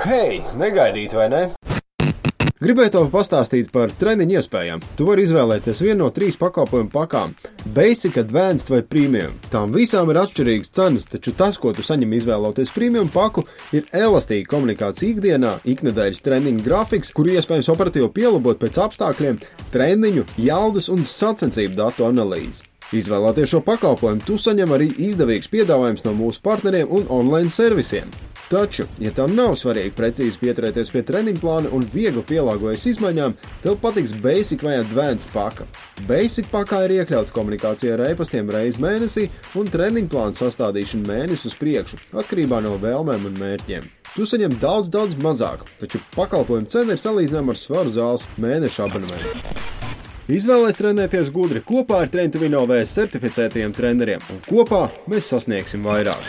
Hei, negaidīt vai ne? Gribēju tev pastāstīt par treniņu iespējām. Tu vari izvēlēties vienu no 3 pakalpojumu pakām – Basic, Advanced vai Premium. Tām visām ir atšķirīgas cenas, taču tas, ko tu saņem izvēloties Premium paku, ir elastīga komunikācija ikdienā, iknedēļas treniņu grafiks, kuru iespējams operatīvi pielabot pēc apstākļiem, treniņu, jaudas un sacensību datu analīzi. Izvēloties šo pakalpojumu, tu saņem arī izdevīgs piedāvājums no mūsu partneriem un online servisiem. Taču, ja tev nav svarīgi precīzi pieturēties pie treniņu plāna un viegli pielāgojas izmaiņām, tev patiks Basic vai Advanced paka. Basic pakā ir iekļauts komunikācija ar e-pastiem reizi mēnesī un treniņu plānu sastādīšana mēnesi uz priekšu, atkarībā no vēlmēm un mērķiem. Tu saņem daudz mazāk, taču pakalpojumu cena ir salīdzināma ar Svaru zāles mēneša abonementu. Izvēlēs trenēties gudri kopā ar Train to Win OV certificētajiem treneriem, un kopā mēs sasniegsim vairāk.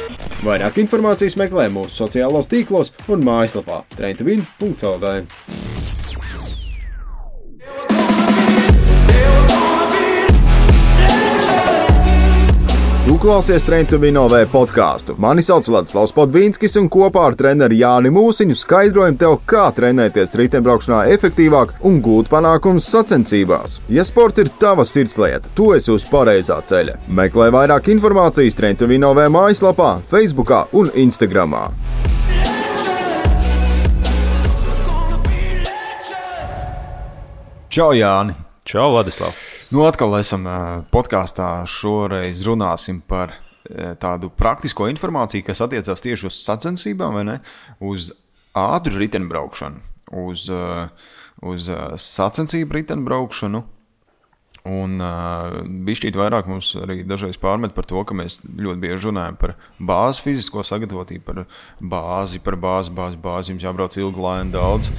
Vairāk informācijas meklē mūsu sociālos tīklos un mājaslapā traintovin.lv. Tu klausies Train to Win OV podkāstu. Mani sauc Vladislavs Podvīnskis un kopā ar treneri Jāni Mūsiņu skaidrojam tev, kā trenēties riteņbraukšanā efektīvāk un gūt panākumus sacensībās. Ja sports ir tava sirdslieta, tu esi uz pareizā ceļa. Meklē vairāk informācijas Train to Win OV mājaslapā, Facebookā un Instagramā. Čau, Jāni! Čau, Vladislav! Nu, atkal esam podkāstā. Šoreiz runāsim par tādu praktisko informāciju, kas attiecās tieši uz sacensībām, vai ne? Uz ātru riteņbraukšanu, uz sacensību riteņbraukšanu. Un bišķīt vairāk mums arī dažreiz pārmet par to, ka mēs ļoti bieži runājam par bāzi fizisko sagatavotību, par bāzi, jums jābrauc ilgi, lēni daudz.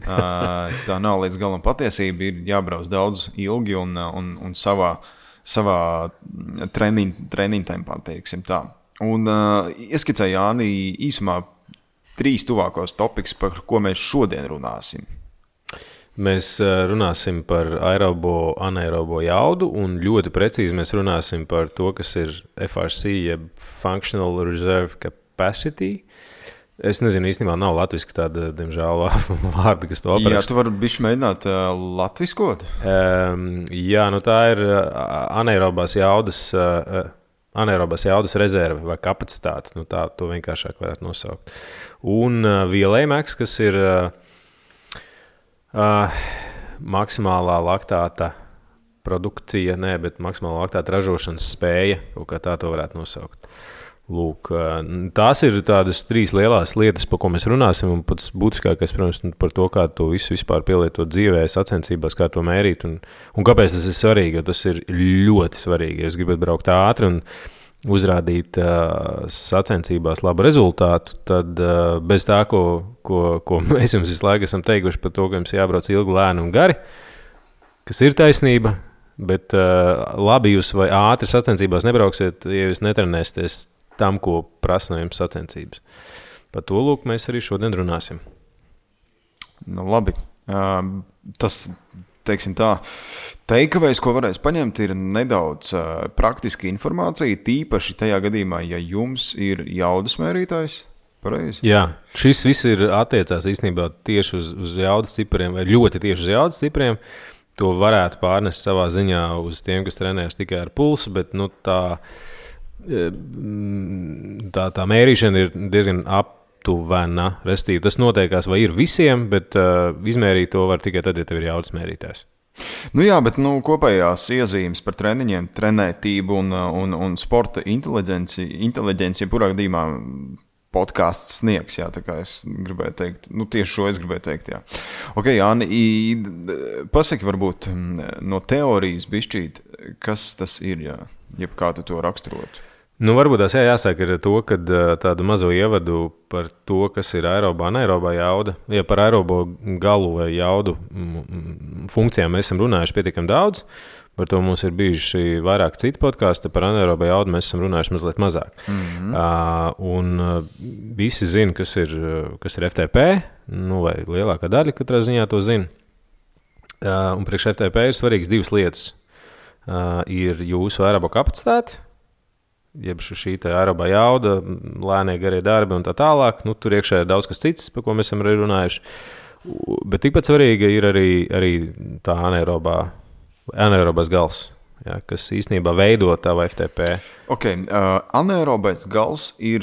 Tā nav līdz galam patiesība, ir jābrauc daudz ilgi un savā treniņu tempā, teiksim tā. Un ieskicēju Jāni īsumā 3 tuvākos topikus, par ko mēs šodien runāsim. Mēs runāsim par aerobo, anaerobo jaudu un ļoti precīzi mēs runāsim par to, kas ir FRC, jeb Functional Reserve Capacity. Es nezinu, īstenībā nav latviski tāda, diemžēl, vārda, kas to apraksta. Jā, tu vari bišķi mēģināt latviskot? Jā, nu tā ir anaerobās jaudas rezerve vai kapacitāte. Nu tā to vienkāršāk varētu nosaukt. Un VLA-max, kas ir maksimālā laktāta produkcija, bet maksimālā laktāta ražošanas spēja, kaut kā tā to varētu nosaukt. Lūk, tās ir tādas 3 lielās lietas, par ko mēs runāsim, un pats būtiskākais, protams, par to, kā to visu vispār pielietot dzīvē, sacensībās, kā to mērīt, un kāpēc tas ir svarīgi, jo tas ir ļoti svarīgi. Ja jūs gribat braukt ātri un uzrādīt sacensībās labu rezultātu, tad bez tā, ko mēs jums visu laiku esam teikuši par to, ka jums jābrauc ilgi, lēni un gari, kas ir taisnība, bet labi jūs vai ātri sacensībās nebrauksiet, ja jūs netrenēsieties tam, ko prasa no jums sacensības. Par to, lūk, mēs arī šodien runāsim. Nu, labi. Tas, teiksim tā, takeaways, ko varēs paņemt, ir nedaudz praktiska informācija, tīpaši tajā gadījumā, ja jums ir jaudas mērītājs. Pareizi? Jā, šis viss ir attiecās īstenībā tieši uz jaudas cipriem, vai ļoti tieši uz jaudas cipriem. To varētu pārnest savā ziņā uz tiem, kas trenējas tikai ar pulsu, bet nu, tā mērīšana ir diezgan aptuvena. Restīvi, tas noteikās vai ir visiem, bet izmērīt to var tikai tad, ja tev ir jaudas mērītājs. Nu jā, bet kopējās iezīmes par treniņiem, trenētību un sporta inteliģenci, jebkurā gadījumā podkāsts sniegs, jā, tā kā es gribēju teikt, tieši šo es gribēju teikt, jā. Ok, Jāni, pasaki varbūt no teorijas bišķīt, kas tas ir, jā, jeb kā tu to raksturot? Nu, varbūt tās jāsāk ar to, kad tādu mazo ievadu par to, kas ir aerobā, anaerobā jauda. Ja par aerobo galu vai jaudu funkcijām mēs esam runājuši pietiekami daudz, par to mums ir bijuši vairāk citu podkāstu, par anaerobo jaudu mēs esam runājuši mazliet mazāk. Un visi zina, kas ir FTP, vai lielākā daļa katrā ziņā to zina. Un priekš FTP ir svarīgas 2 lietas. Ir jūsu aerobo kapacitāte, jeb šī aerobā jauda, lēnie garie darbi un tā tālāk. Nu, tur iekšā ir daudz kas cits, par ko mēs esam arī runājuši. Bet tikpat svarīga ir arī tā anaerobais gals, ja, kas īstenībā veido tavu FTP. Anaerobais gals ir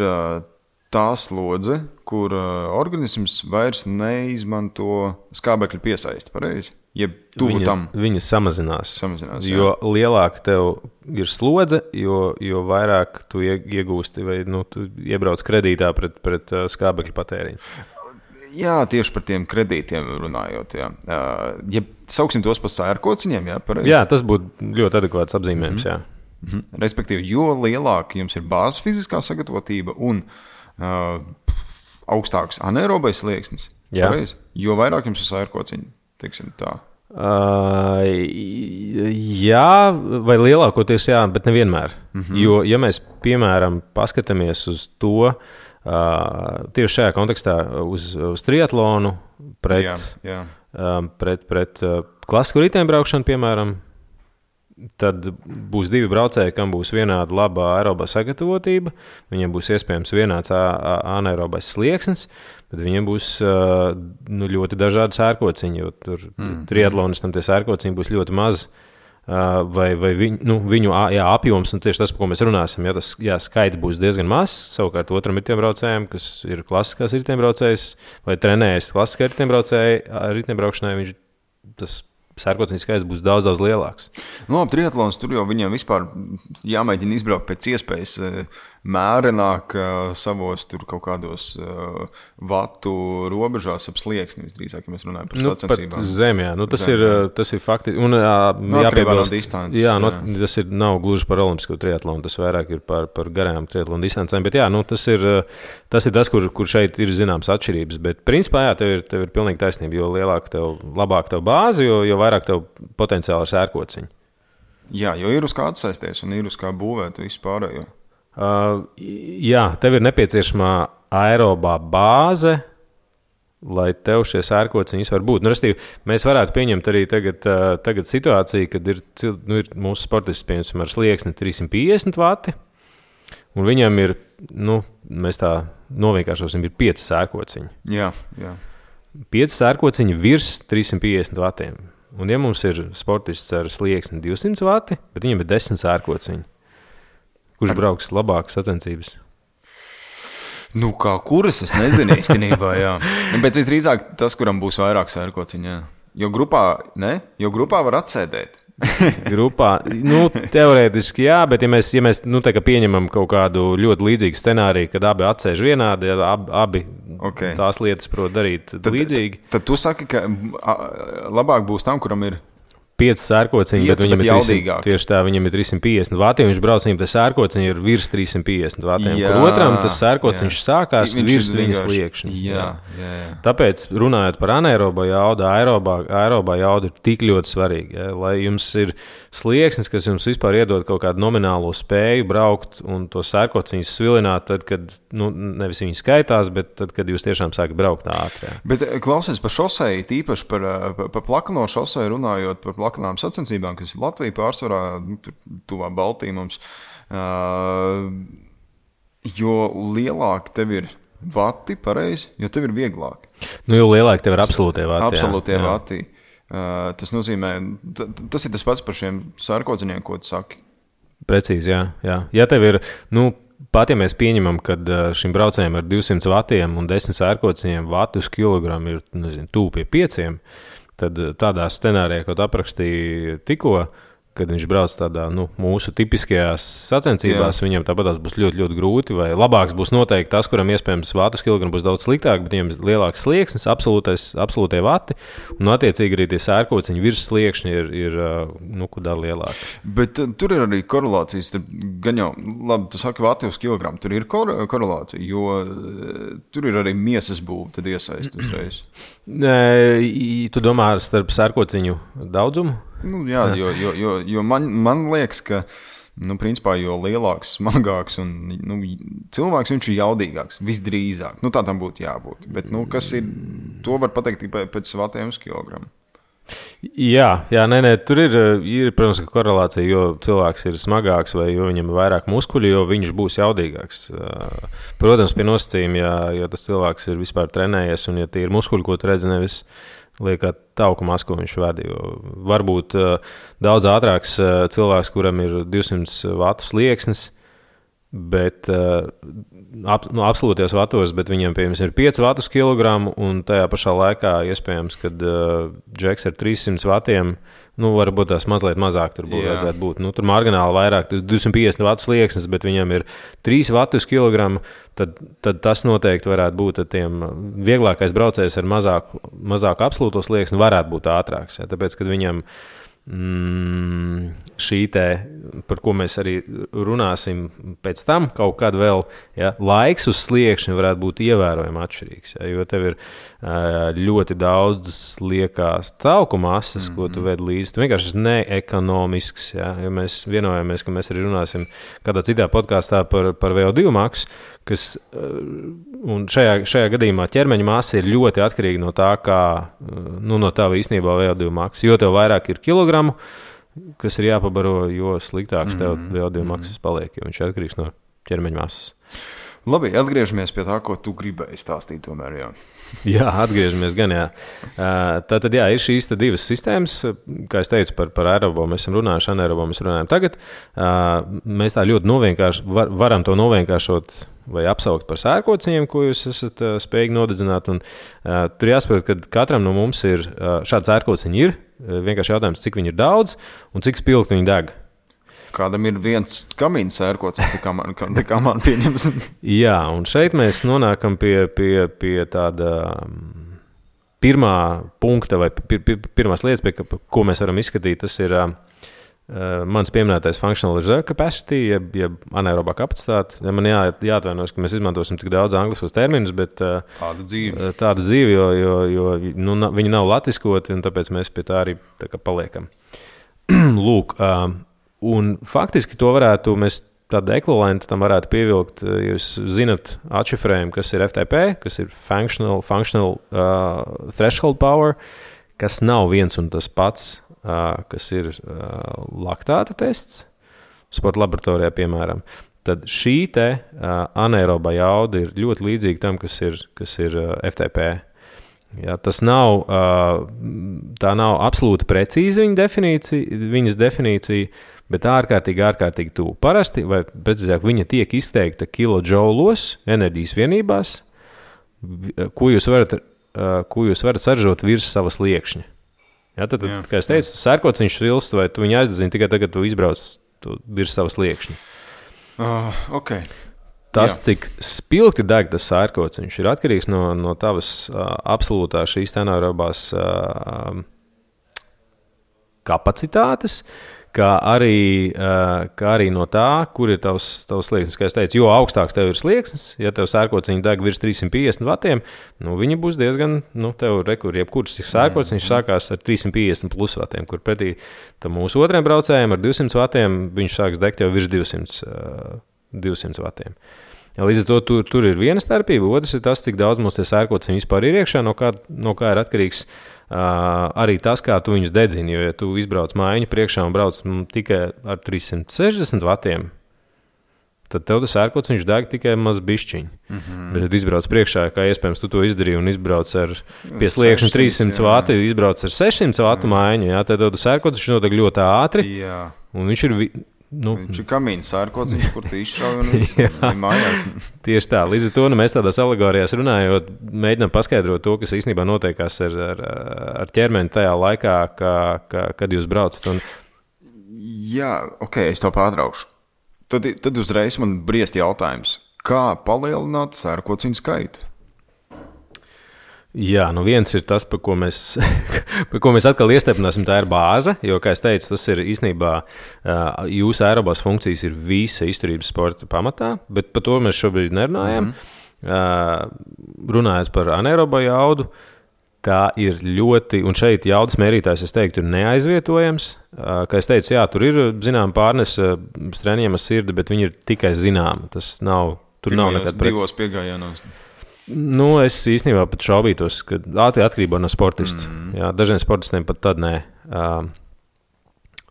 tā slodze, kur organisms vairs neizmanto skābekļa piesaisti, pareizi? Jeb tuvu tam. Viņa samazinās jo lielāka tev ir slodze, jo vairāk tu iegūsti vai tu iebrauc kredītā pret skābekļa patēriņu. Jā, tieši par tiem kredītiem runājot. Jā. Ja sauksim tos par sērkociņiem, jā, pareizi? Jā, tas būtu ļoti adekvāts apzīmējums, jā. Respektīvi, jo lielāka jums ir bāzes fiziskā sagatavotība un augstāks anaerobais slieksnis, pareizi, jo vairāk jums ir sērkociņi. Tā. Jā, vai lielākoties jā, bet nevienmēr. Jo, ja mēs, piemēram, paskatāmies uz to, tieši šajā kontekstā uz triatlonu pret klasisku riteņbraukšanu, piemēram, tad būs divi braucēji, kam būs vienāda laba aerobā sagatavotība, viņiem būs iespējams vienāds anaerobais slieksnis, bet viņiem būs ļoti dažādi sērkociņi, jo tur triatlonistam tie sērkociņi būs ļoti maz, vai viņu apjoms, un tieši tas, par ko mēs runāsim, tas skaits būs diezgan mazs. Savukārt otram riteņbraucējam, kas ir klasiskās riteņbraucējs vai trenējas klasiskā riteņbraukšanai, tas sērkociņu skaits būs daudz, daudz lielāks. Labi, triatlons tur jau viņiem vispār jāmēģina izbraukt pēc iespējas mērenāk savos tur kaut kādos vatu robežās ap slieksni, visdrīzāk, ja mēs runājam par sacensībām. Pat zem, jā. Tas ir fakti. Un jāpiebilst, tas nav gluži par olimpisko triatlonu, tas vairāk ir par garām triatlonu distancēm, bet jā, tas ir tas, kur šeit ir zināms atšķirības, bet principā, jā, tev ir pilnīgi taisnība, jo labāk tev bāzi, jo vairāk tev potenciāli ir sērkociņi. Jā, jo ir uz kā atsaisties un ir uz kā būvēt visu pārējo. Jā, tev ir nepieciešamā aerobā bāze, lai tev šie sērkociņi var būt. Mēs varētu pieņemt arī tagad situāciju, kad ir mūsu sportists, piemēram, ar slieksni 350 vati, un viņam ir, mēs tā novienkāršosim, ir 5 sērkociņi. Jā. 5 sērkociņi virs 350 vatiem. Un ja mums ir sportists ar slieksni 200 vati, bet viņam ir 10 sērkociņi, kurš brauks labāk sacensības? Kā kuras, es nezinu īstenībā, jā. Bet visdrīzāk tas, kuram būs vairāk sērkociņi, jā. Jo grupā var atsēdēt. Grupā, teorētiski jā, bet ja mēs pieņemam kaut kādu ļoti līdzīgu scenāriju, kad abi atsēž vienādi, abi tās lietas prot darīt līdzīgi. Tad tu saki, ka labāk būs tam, kuram ir 5 sērkociņi, bet viņam tieši tā, viņam ir 350 vati, un viņš brauc viņam, tas sērkociņi ir virs 350 vatiem, kur otram tas sērkociņš sākās virs viņas sliekšņa. Jā. Tāpēc, runājot par anaerobā jaudu, aerobā jauda ir tik ļoti svarīga, ja, lai jums ir slieksnis, kas jums vispār iedod kaut kādu nominālo spēju braukt un to sērkociņus svilināt, tad, kad, nevis viņi skaitās, bet tad, kad jūs tiešām sākat braukt ātri. Bet klausies par šoseju, tīpaši par plakano šoseju runājot, par plakanām sacensībām, kas ir Latvija pārsvarā, tuvā Baltija mums, jo lielāk tev ir vati, pareizi, jo tev ir vieglāk. Jo lielāk tev ir absolūtie vati. Absolūtie vati. Tas nozīmē, tas ir tas pats par šiem sērkociņiem, ko tu saki. Precīzi, jā. Ja tev ir, pat ja mēs pieņemam, ka šim braucējiem ar 200 vatiem un 10 sērkociņiem vati uz kilogramu ir, tuvu pie 5, tad tādā scenārijā, ko tu aprakstīji tikko, kad viņš brauc tādā mūsu tipiskajās sacensībās, viņam tāpatās būs ļoti, ļoti grūti, vai labāks būs noteikti tas, kuram iespējams vātus kilogramu būs daudz sliktāk, bet viņam ir lielāks slieksnis, absolūtie vati, un attiecīgi arī tie sērkociņi virs sliekšņi ir kudā lielāki. Bet tur ir arī korelācijas, gan jau, labi, tu saki vati uz kilogramu, tur ir korelācija, jo tur ir arī miesas būve, tad iesaist uzreiz. Tu domā starp sērkociņu daudzumu? Jā, jo man liekas, ka principā, jo lielāks, smagāks un cilvēks viņš ir jaudīgāks, visdrīzāk. Tā tam būtu jābūt. Bet kas ir, to var pateikt tikai pēc vatiem uz kilogramu. Jā, tur ir, protams, korelācija, jo cilvēks ir smagāks vai jo viņam ir vairāk muskuļu, jo viņš būs jaudīgāks. Protams, pie nosacījuma, ja tas cilvēks ir vispār trenējies un ja tie ir muskuļi, ko tu redzi, nevis liekā tauku masku viņš vada. Varbūt daudz ātrāks cilvēks, kuram ir 200 vatu slieksnis, bet absolūtajos vatos, bet viņam, piemēram, ir 5 vatus kilogramu, un tajā pašā laikā iespējams, kad džeks ar 300 vatiem, varbūt tās mazliet mazāk tur vajadzētu būt. Tur margināli vairāk, 250 vatu slieksnis, bet viņam ir 3 vatus kilogramu, tad tas noteikti varētu būt tiem vieglākais braucējs ar mazāku absolūto slieksni varētu būt ātrāks. Tāpēc, kad viņam šī te, par ko mēs arī runāsim pēc tam, kaut kad vēl, laiks uz sliekšņa varētu būt ievērojami atšķirīgs, jo tev ir ļoti daudz liekās tauku masas, ko tu ved līdzi. Tu vienkārši esi neekonomisks, jo mēs vienojamies, ka mēs arī runāsim kādā citā podkāstā par VO2 maksu, kas, un šajā gadījumā ķermeņa masa ir ļoti atkarīga no tā, no tā īstenībā VO2 maksa. Jo tev vairāk ir kilogramu, kas ir jāpabaro, jo sliktāks tev VO2 maksas paliek, jo viņš ir atkarīgs no ķermeņa masas. Labi, atgriežamies pie tā, ko tu gribēji stāstīt tomēr, Jā, atgriežamies gan, Tātad, ir šīs divas sistēmas, kā es teicu, par aerobo mēs esam runājuši, anaerobo mēs runājam tagad. Mēs tā ļoti varam to novienkāršot vai apsaukt par sērkociņiem, ko jūs esat spējīgi nodedzināt. Un, tur jāsaprot, ka katram no mums ir šādi sērkociņi ir. Vienkārši jautājums, cik viņi ir daudz un cik spilgti viņi deg. Kādam ir viens kamīns sērkocis, kā man pieņems. Jā, un šeit mēs nonākam pie tāda pirmā punkta vai pirmās lietas, pie ko mēs varam izskatīt. Tas ir mans pieminētais functional reserve capacity, jeb anaerobā kapacitāte. Man jāatvainojas, ka mēs izmantosim tik daudz angliskos terminus, bet tāda dzīve, jo viņi nav latviskoti, un tāpēc mēs pie tā arī tā kā paliekam. Lūk, un faktiski to mēs tādu ekvivalentu tam varētu pievilkt, jūs zinat atšifrējumu, kas ir FTP, kas ir functional threshold power, kas nav viens un tas pats, kas ir laktāta tests, sporta laboratorijā, piemēram. Tad šī te anaeroba jauda ir ļoti līdzīga tam, kas ir FTP. Ja, tā nav absolūti precīza viņas definīcija, bet ārkārtīgi tuvu. Parasti, vai precīzāk, viņa tiek izteikta kilodžaulos, enerģijas vienībās, ko jūs varat saražot virs savas liekšņa. Ja, tad, kā es teicu, sērkociņš vilst, vai tu viņu aizdedzini tikai tagad, tu izbrauc virs savas liekšņa. Okay. Tas, cik spilgti deg tas sērkociņš, ir atkarīgs no tavas absolūtā šīs anaerobās kapacitātes, kā arī no tā, kur ir tavs slieksnis. Kā es teicu, jo augstāks tev ir slieksnis, ja tev sērkociņi deg virs 350 vatiem, viņi būs diezgan, tev jebkurš sērkociņš sākās ar 350 plus vatiem, kur pretī tam mūsu otriem braucējiem ar 200 vatiem viņš sāks degt jau virs 200 vatiem. Ja, līdz ar to tur ir viena starpība, otrs ir tas, cik daudz mums tie sērkociņi vispār ir iekšā, no kā ir atkarīgs arī tas, kā tu viņus dedzini. Jo, ja tu izbrauc mājiņu priekšā un brauc tikai ar 360 vatiem, tad tev tas sērkociņš deg tikai maz bišķiņi. Bet, ja tu izbrauc priekšā, kā iespējams tu to izdarīji un izbrauc ar pie sliekšņa 300 vati, izbrauc ar 600 vatu mājiņu, tad tev tas sērkociņš nodeg ļoti ātri, un viņš ir... Viņš ir kamīns sērkociņš, kur tu izšauj un viņš mājās. Tieši tā. Līdz ar to mēs tādās alegorijās runājot, mēģinām paskaidrot to, kas īstenībā notiekās ar ķermeni tajā laikā, kad jūs braucat. Jā, ok, es tev pārtraukšu. Tad uzreiz man briest jautājums. Kā palielināt sērkociņu skaitu? Jā, viens ir tas, par ko mēs atkal iestiprināsim, tā ir bāze, jo, kā es teicu, tas ir īstenībā jūsu aerobās funkcijas ir visa izturības sporta pamatā, bet par to mēs šobrīd nerunājam. Runājot par anaerobo jaudu, tā ir ļoti, un šeit jaudas mērītājs, es teiktu, ir neaizvietojams. Kā es teicu, jā, tur ir, zinām, pārnese strēņiem ar sirdi, bet viņi ir tikai zinām. Tas nav, tur nav nekad divos piegājienos. Es īstenībā pat šaubītos, ka atkarībā no sportista. Jā, dažiem sportistiem pat tad nē.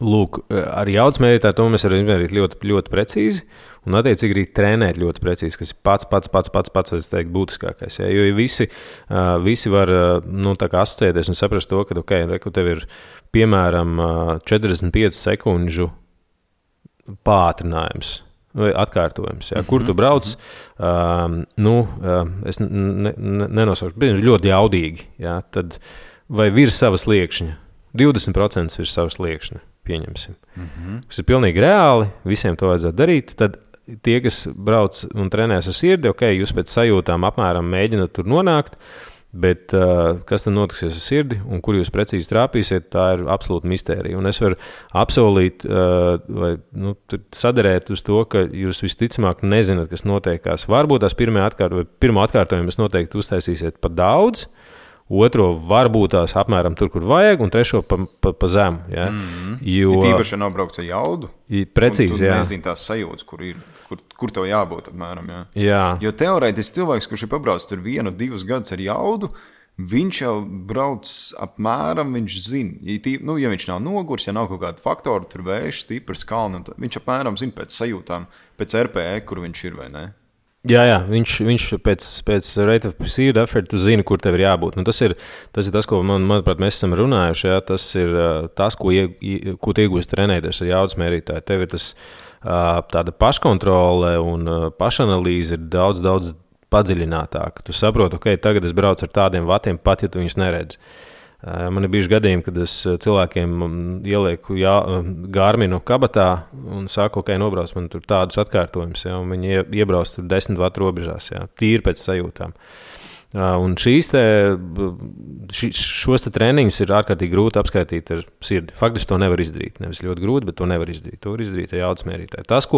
Lūk, ar jaudas mērītāju to mēs varam izmērīt ļoti, ļoti precīzi un attiecīgi arī trenēt ļoti precīzi, kas ir pats es teiktu, būtiskākais. Ja? Jo visi var tā kā asociēties un saprast to, ka, tev ir piemēram 45 sekundžu pātrinājums vai atkārtojums. Ja? Kur tu brauc? Es nenosaukšu, bet ļoti jaudīgi. Ja? Tad vai virs savas sliekšņa? 20% virs savas sliekšņa. Pieņemsim. Tas ir pilnīgi reāli, visiem to vajadzētu darīt. Tad tie, kas brauc un trenēs ar sirdi, jūs pēc sajūtām apmēram mēģināt tur nonākt, bet kas tad notiksies ar sirdi un kur jūs precīzi trāpīsiet, tā ir absolūta mistērija. Un es varu apsolīt vai sadarēt uz to, ka jūs visticamāk nezināt, kas notiekās. Varbūt tās pirmo atkārtojumu jūs noteikti uztaisīsiet pa daudz, otro varbūt tās apmēram tur, kur vajag, un trešo pa zemu. Ja? Jo tīpaši nav braukts ar jaudu. Precīzi, jā. Nezinu tās sajūtas, kur tev jābūt apmēram. Jā. Jā. Jo teorētiski cilvēks, kurš ir pabraucis tur 1-2 gadus ar jaudu, viņš jau brauc apmēram, viņš zina. Ja viņš nav nogurs, ja nav kaut kāda faktora, tur vējš, stiprs, kalni, viņš apmēram zina pēc sajūtām, pēc RPE, kur viņš ir vai ne. Jā, viņš pēc rate of perceived effort zina, kur tev ir jābūt. Tas ir tas, ko manuprāt, mēs esam runājuši. Jā. Tas ir tas, ko tu iegūsi trenēties ar jaudas mērītāju. Tev ir tas tāda paškontrole un pašanalīze ir daudz, daudz padziļinātāka. Tu saproti, tagad es braucu ar tādiem vatiem, pat ja tu viņus neredzi. Man ir bijuši gadījumi, kad es cilvēkiem ielieku Garminu kabatā un saku, nobrauc man tur tādus atkārtojumus, ja, un viņi iebrauc tur 10 vatu robežās, ja, tīri pēc sajūtām. Un šos treniņus ir ārkārtīgi grūti apskaitīt ar sirdi. Faktiski to nevar izdarīt. Nevis ļoti grūti, bet to nevar izdarīt. To var izdarīt ar jaudas mērītāju. Tas,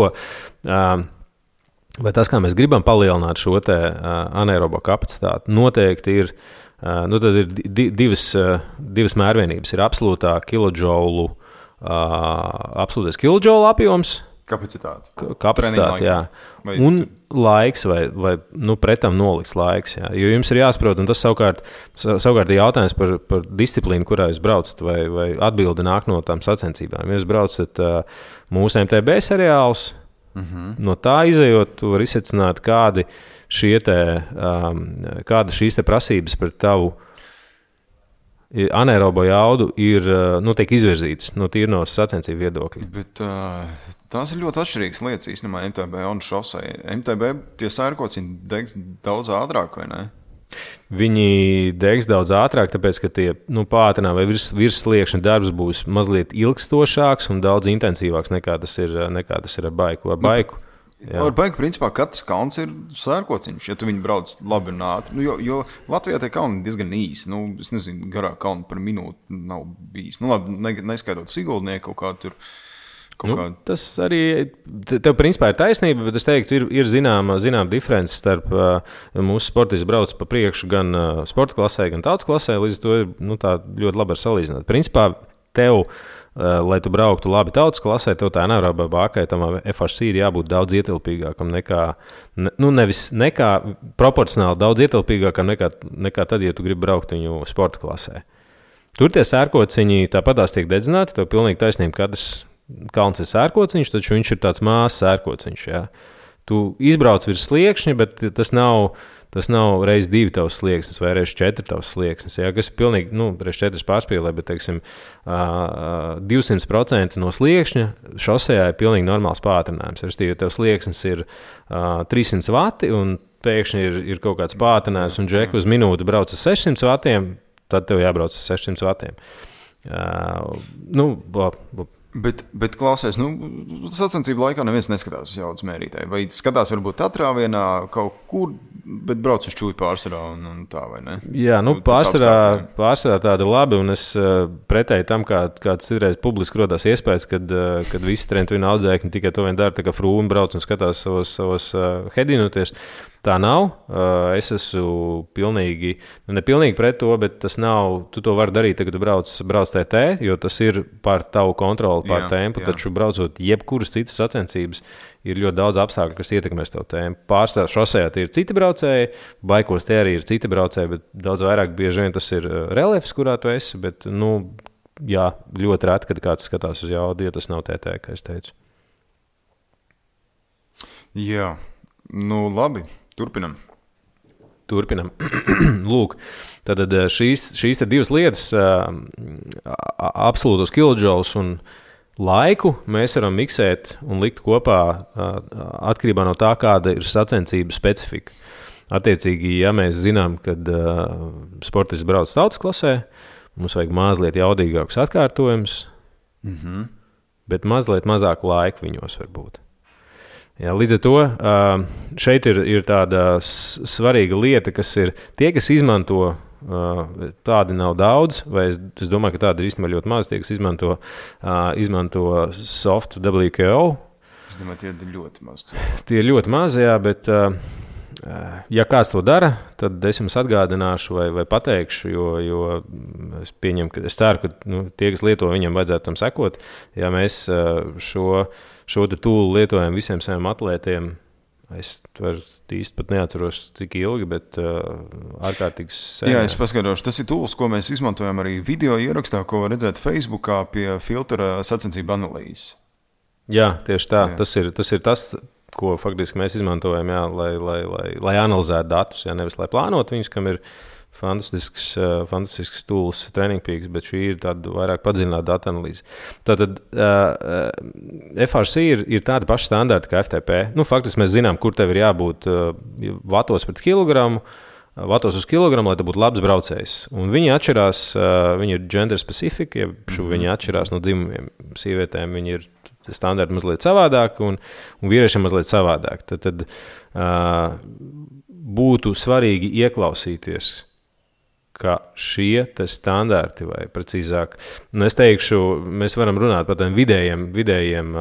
kā mēs gribam palielināt šo anaerobo kapacitāti, noteikti ir tad ir divas mērvienības. Ir absolūtais kilodžoulu apjoms. Kapacitāte, jā. Un laiks vai pretam nolikts laiks. Jā. Jo jums ir jāsaprot, un tas savukārt ir jautājums par disciplīnu, kurā jūs braucat, vai atbildi nāk no tām sacensībām. Ja jūs braucat mūsu MTB seriālus, no tā izejot, tu vari izsecināt, kāda šīs prasības par tavu anaerobo jaudu tiek izvirzītas no sacensību viedokļa. Bet tās ir ļoti atšķirīgas lietas īstenībā MTB un šosei. MTB tie sērkociņi degs daudz ātrāk, vai ne? Viņi degs daudz ātrāk, tāpēc, ka tie pātrinā vai virs sliekšņa darbs būs mazliet ilgstošāks un daudz intensīvāks nekā tas ir ar baiku. Ar baigu, principā, katrs kalns ir sērkociņš, ja tu viņu brauc labi un ātri. Jo Latvijā tie kalni diezgan īsi. Es nezinu, garā kalni par minūti nav bijis. Labi, neskaidot Siguldnieku kaut kā tur. Tas arī tev principā ir taisnība, bet es teiktu, ir zināma diference starp mūsu sportisti brauc pa priekšu gan sporta klasē, gan tautas klasē. Līdz to ir tā ļoti labi var salīdzināt. Principā tev, lai tu brauktu labi tautas klasē, tev tā anaerobā bākai, tam FRC ir jābūt daudz ietilpīgākam nekā proporcionāli daudz ietilpīgākam nekā tad, ja tu gribi braukt viņu sporta klasē. Tur tie sērkociņi tāpatās tiek dedzināti, tev pilnīgi taisnība, katrs kalns ir sērkociņš, taču viņš ir tāds mazs sērkociņš. Jā. Tu izbrauc virs sliekšņa, bet tas nav reiz 2 tavs slieksnis vai reiz 4 tavs slieksnis. Jā, kas ir pilnīgi, reiz 4 pārspīlē, bet, teiksim, 200% no sliekšņa šosejā ir pilnīgi normāls pātrinājums. Ja tev slieksnis ir 300 vati un pēkšņi ir kaut kāds pātrinājums un džeku uz minūti brauc ar 600 vatiem, tad tev jābrauc ar 600 vatiem. Bet klausies, sacensību laikā neviens neskatās uz jaudas mērītāju. Vai skatās varbūt atrāvienā kaut kur, bet brauc uz čūju pārsvarā un tā, vai ne? Jā, pārsvarā tāda labi, un es pretēji tam, kāds citreiz publiski rodās iespējas, kad visi trentu audzēkņi tikai to vien dara, tā kā frūmi brauc un skatās savos hedinoties. Tā nav. Es esmu nepilnīgi pret to, bet tas nav. Tu to vari darīt, kad tu brauc TT, jo tas ir pār tavu kontroli, pār tempu. Taču braucot jebkuras citas sacensības, ir ļoti daudz apstākļu, kas ietekmēs tavu tempu. Pārstāvā šosejā tie ir citi braucēji, baikos tie arī ir citi braucēji, bet daudz vairāk bieži vien tas ir reliefs, kurā tu esi. Bet, ļoti reti, kad kāds skatās uz jaudu, ja tas nav TT, kā es teicu. Jā, labi. Turpinam. Lūk, tad šīs ir divas lietas, absolūtos kilodžaulus un laiku mēs varam miksēt un likt kopā atkarībā no tā, kāda ir sacensību specifika. Attiecīgi, ja mēs zinām, kad sportists brauc tautas klasē, mums vajag mazliet jaudīgākus atkārtojumus, bet mazliet mazāk laika viņos var būt. Jā, līdz ar to šeit ir tāda svarīga lieta, kas ir tie, kas izmanto, tādi nav daudz, vai es domāju, ka tādi ir īstenībā ļoti maz, tie, kas izmanto soft WKO. Es domāju, tie ir ļoti maz. Tie ir ļoti maz, jā, bet ja kāds to dara, tad es jums atgādināšu vai pateikšu, jo es pieņemu, es ceru, ka tie, kas lieto, viņiem vajadzētu tam sekot. Ja mēs šo te tūlu lietojam visiem saviem atlētiem, es īsti pat neatceros, cik ilgi, bet ārkārtīgi sen. Jā, es paskaidrošu. Tas ir tūls, ko mēs izmantojam arī video ierakstā, ko var redzēt Facebookā pie filtra sacensību analīzes. Jā, tieši tā. Jā. Tas ir tas, ko faktiski mēs izmantojam, jā, lai analizētu datus, jā, nevis lai plānotu viņus, kam ir fantastisks tools, Training Peaks, bet šī ir tāda vairāk padziļināta datu analīze. Tātad FRC ir tādi paši standarti kā FTP. Faktiski mēs zinām, kur tev ir jābūt vatos pret kilogramu, vatos uz kilogramu, lai tu būtu labs braucējs. Un viņi atšķirās, viņi ir gender specific, viņi atšķirās no dzimumiem. Sievietēm viņi ir standarti mazliet savādāk un vīriešiem mazliet savādāk. Tad būtu svarīgi ieklausīties, ka šie standarti, vai precīzāk, es teikšu, mēs varam runāt par tiem vidējiem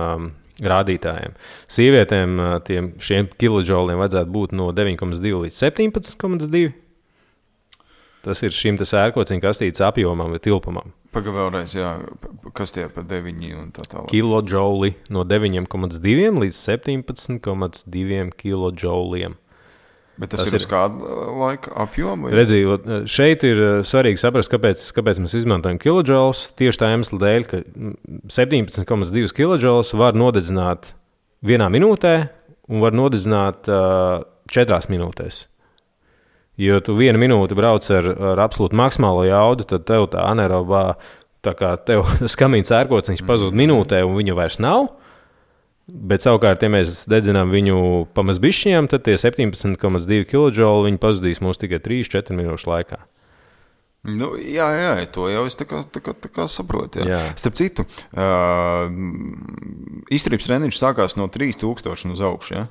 rādītājiem. Sievietēm šiem kilodžauliem vajadzētu būt no 9,2 līdz 17,2. Tas ir šim sērkociņa kastītes apjomam vai tilpumam. Pagaid vēlreiz, jā, kas tie pa 9 un tā tālāk? Kilodžauli no 9,2 līdz 17,2 kilodžauliem. Bet tas ir uz kādu laika apjomu? Redzījot, šeit ir svarīgi saprast, kāpēc mēs izmantojam kilodžaulus. Tieši tā iemesla dēļ, ka 17,2 kilodžaulus var nodedzināt 1 minūtē un var nodedzināt 4 minūtēs. Jo tu 1 minūti brauc ar absolūti maksimālo jaudu, tad tev tā anaerobā, tā kā tev skamīns ērkociņš pazūd minūtē un viņa vairs nav. Bet savukārt, ja mēs dedzinām viņu pamazbišķiem, tad tie 17,2 kilodžauli viņi pazudīs mūs tikai 3-4 minūšu laikā. Jā, to jau es tā kā saprotu. Jā. Starp citu, izturības treniņš sākās no 3000 uz augšu, jā?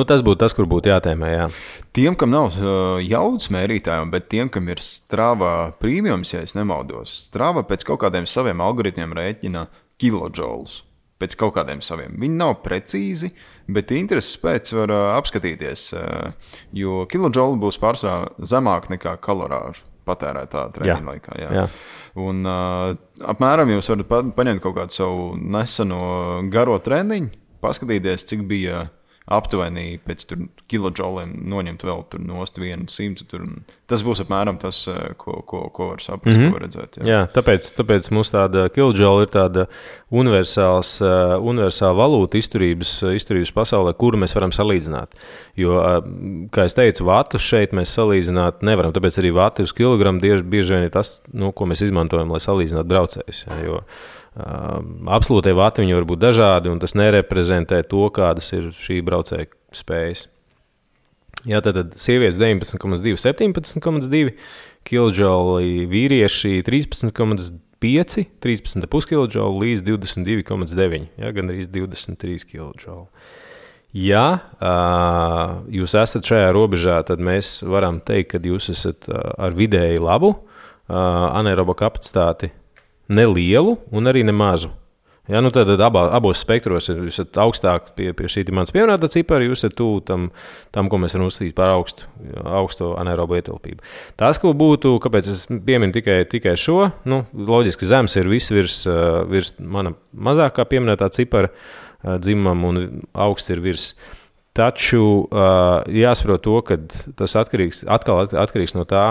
Tas būtu tas, kur būtu jātēmē, jā. Tiem, kam nav jaudas mērītājiem, bet tiem, kam ir Strava premiums, ja es nemaldos, Strava pēc kaut kādiem saviem algoritmiem rēķina kilodžaulus. Pēc kaut kādiem saviem. Viņi nav precīzi, bet intereses pēc var apskatīties, jo kilodžauli būs pārsvarā zemāk nekā kalorāžu patērētā treniņa laikā. Jā. Un apmēram jūs varat paņemt kaut kādu savu neseno garo treniņu, paskatīties, cik bija aptuveni pēc kilodžauliem noņemt vēl nost 100. Tas būs apmēram tas, ko var saprast, ko var redzēt. Jā, tāpēc mums tāda kilodžaula ir tāda universāla valūta izturības pasaulē, kuru mēs varam salīdzināt. Jo, kā es teicu, vatus šeit mēs salīdzināt nevaram, tāpēc arī vati uz kilogramu bieži vien ir tas, ko mēs izmantojam, lai salīdzinātu braucējus. Jo absolūtie vati viņi var būt dažādi, un tas nereprezentē to, kādas ir šī braucēja spējas. Jā, tad sievietes 19,2, 17,2 kilodžauli, vīrieši 13,5, 13,5 kilodžauli līdz 22,9, gan arī 23 kilodžauli. Ja jūs esat šajā robežā, tad mēs varam teikt, ka jūs esat ar vidēji labu anaerobo kapacitāti, nelielu un arī nemazu. Ja, nu tad abos spektros jūs esat augstāk pie šī mans pieminētā cipara, jūs esat tuvu tam, ko mēs varam uzskatīt par augsto anaerobu ietilpību. Tas, ko būtu, kāpēc es pieminu tikai šo, loģiski zems ir viss virs mana mazākā pieminētā cipara dzimumam un augsts ir virs. Taču jāsaprot to, ka tas atkarīgs no tā,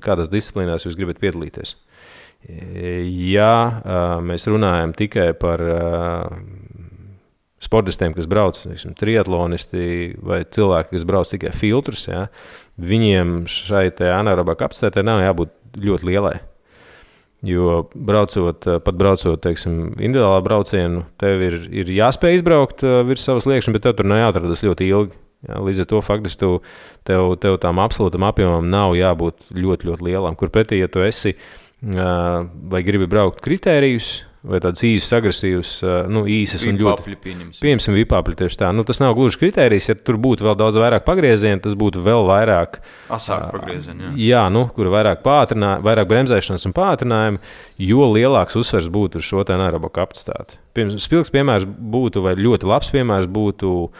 kādās disciplīnās jūs gribat piedalīties. Ja mēs runājam tikai par sportistiem, kas brauc, triatlonisti vai cilvēki, kas brauc tikai filtrus, ja, viņiem šai anaerobā kapacitātei nav jābūt ļoti lielai. Jo braucot, individuālā braucienu, tev ir jāspēj izbraukt virs savas liekšņa, bet tev tur nav jāatrodas ļoti ilgi. Ja, līdz ar to faktiski tev tām absolūtam apjomam nav jābūt ļoti, ļoti lielam, kur pretī, ja tu esi vai gribi braukt kritērijus, vai tādas īsas, agresīvas, īsas un ļoti. Pieņemsim vipāpļi tieši tā. Tas nav gluži kritērijs, ja tur būtu vēl daudz vairāk pagriezienu, tas būtu vēl vairāk. Asāk pagriezienu, jā. Jā, kur vairāk vairāk bremzēšanas un pātrinājumi, jo lielāks uzsvers būtu uz šo anaerobo kapacitāti. Spilgs piemērs būtu, vai ļoti labs piemērs būtu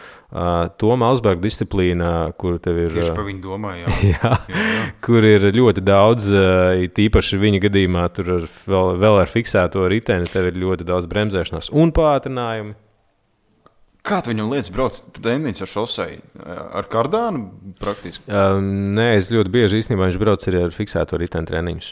Toma Alsberga disciplīna, kur tev ir. Tieši par viņu domāju, jā. Kur ir ļoti daudz, tīpaši viņa gadījumā, tur vēl ar fiksēto riteni, tev ir ļoti daudz bremzēšanās un pātrinājumi. Kā tu viņam lietas brauc treniņš ar šoseju? Ar kardānu praktiski? Nē, es ļoti bieži īstenībā viņš brauc arī ar fiksēto riteni treniņus.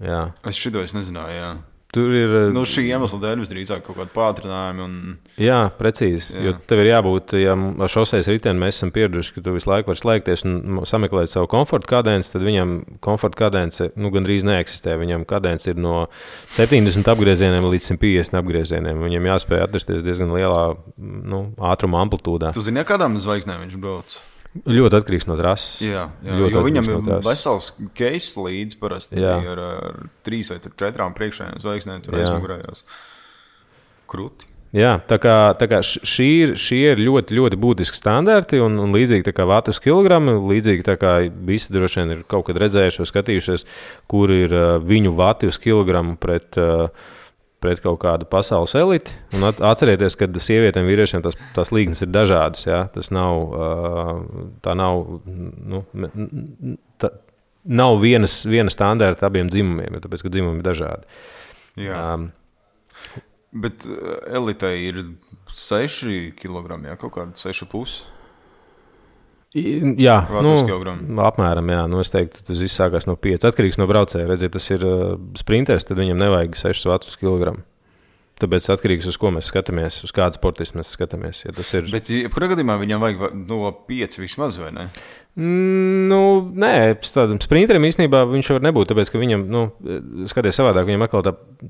Jā. Es nezināju, jā. Tur ir. Šī iemesla dēļ visdrīzāk kaut kāda pātrinājuma. Jā, precīzi. Jā. Jo tev ir jābūt, ja ar šosejas riteni mēs esam pieraduši, ka tu visu laiku vari slēgties un sameklēt savu komforta kadenci, tad viņam komforta kadence gandrīz neeksistē. Viņam kadence ir no 70 apgriezieniem līdz 150 apgriezieniem. Viņam jāspēj atrasties diezgan lielā ātruma amplitūdā. Tu zini, kādām zvaigznēm viņš brauc? Ļoti atkarīgs no trases. Jā, jo viņam ir vesels keis līdz parasti ar 3 vai 4 priekšējām zvaigznēm tur aizmugurējās. Krūti. Jā, tā kā šī ir ļoti, ļoti būtiski standarti un līdzīgi tā kā vatu uz kilogramu, līdzīgi tā kā visi droši vien ir kaut kad redzējuši vai skatījušies, kur ir viņu vati uz kilogramu pret kaut kādu pasaules eliti. Un atcerieties, ka sievietēm un vīriešiem tās līknes ir dažādas. Ja? Tas nav, nav viena standarta abiem dzimumiem, tāpēc, ka dzimumi ir dažādi. Jā. Bet elitei ir 6 kg, ja? Kaut kādi 6,5 Jā, apmēram. Jā. Es teiktu, tas viss sākās no 5. Atkarīgs no braucēja. Redziet, tas ir sprinters, tad viņam nevajag 6 vatus kilogramu. Tāpēc atkarīgs, uz ko mēs skatāmies, uz kādu sportistu mēs skatāmies. Ja tas ir. Bet, kurā gadījumā viņam vajag no 5 vismaz, vai ne? Nē, tādam sprinterim īstenībā viņš var nebūt, tāpēc, ka viņam, skaties savādāk, viņam atkal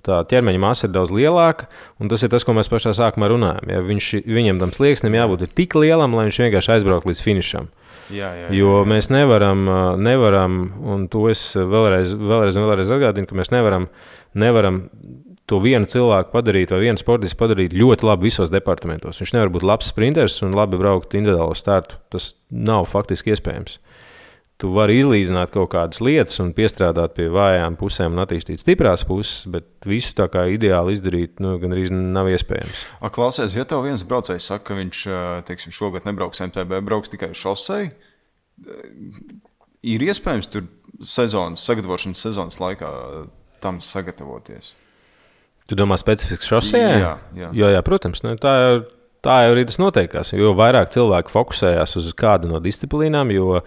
tā ķermeņa masa ir daudz lielāka, un tas ir tas, ko mēs pašā sākumā runājam. Ja viņam tam slieksnim jābūt tik lielam, lai viņš vienkārši aizbrauktu līdz finišam. Jā. Jo mēs nevaram, un to es vēlreiz atgādinu, ka mēs nevaram to vienu cilvēku padarīt vai vienu sportistu padarīt ļoti labi visos departamentos. Viņš nevar būt labs sprinters un labi braukt individuālo startu. Tas nav faktiski iespējams. Tu vari izlīdzināt kaut kādas lietas un piestrādāt pie vājām pusēm un attīstīt stiprās puses, bet visu tā kā ideāli izdarīt gandrīz nav iespējams. Klausies, ja tev viens braucējs saka, ka viņš, šogad nebrauks MTB, brauks tikai šosei, ir iespējams tur sagatavošanas sezonas laikā tam sagatavoties? Tu domā specifiski šosejā? Jā, protams. Tā jau arī tas noteikās. Jo vairāk cilvēki fokusējās uz kādu no disciplīnām, jo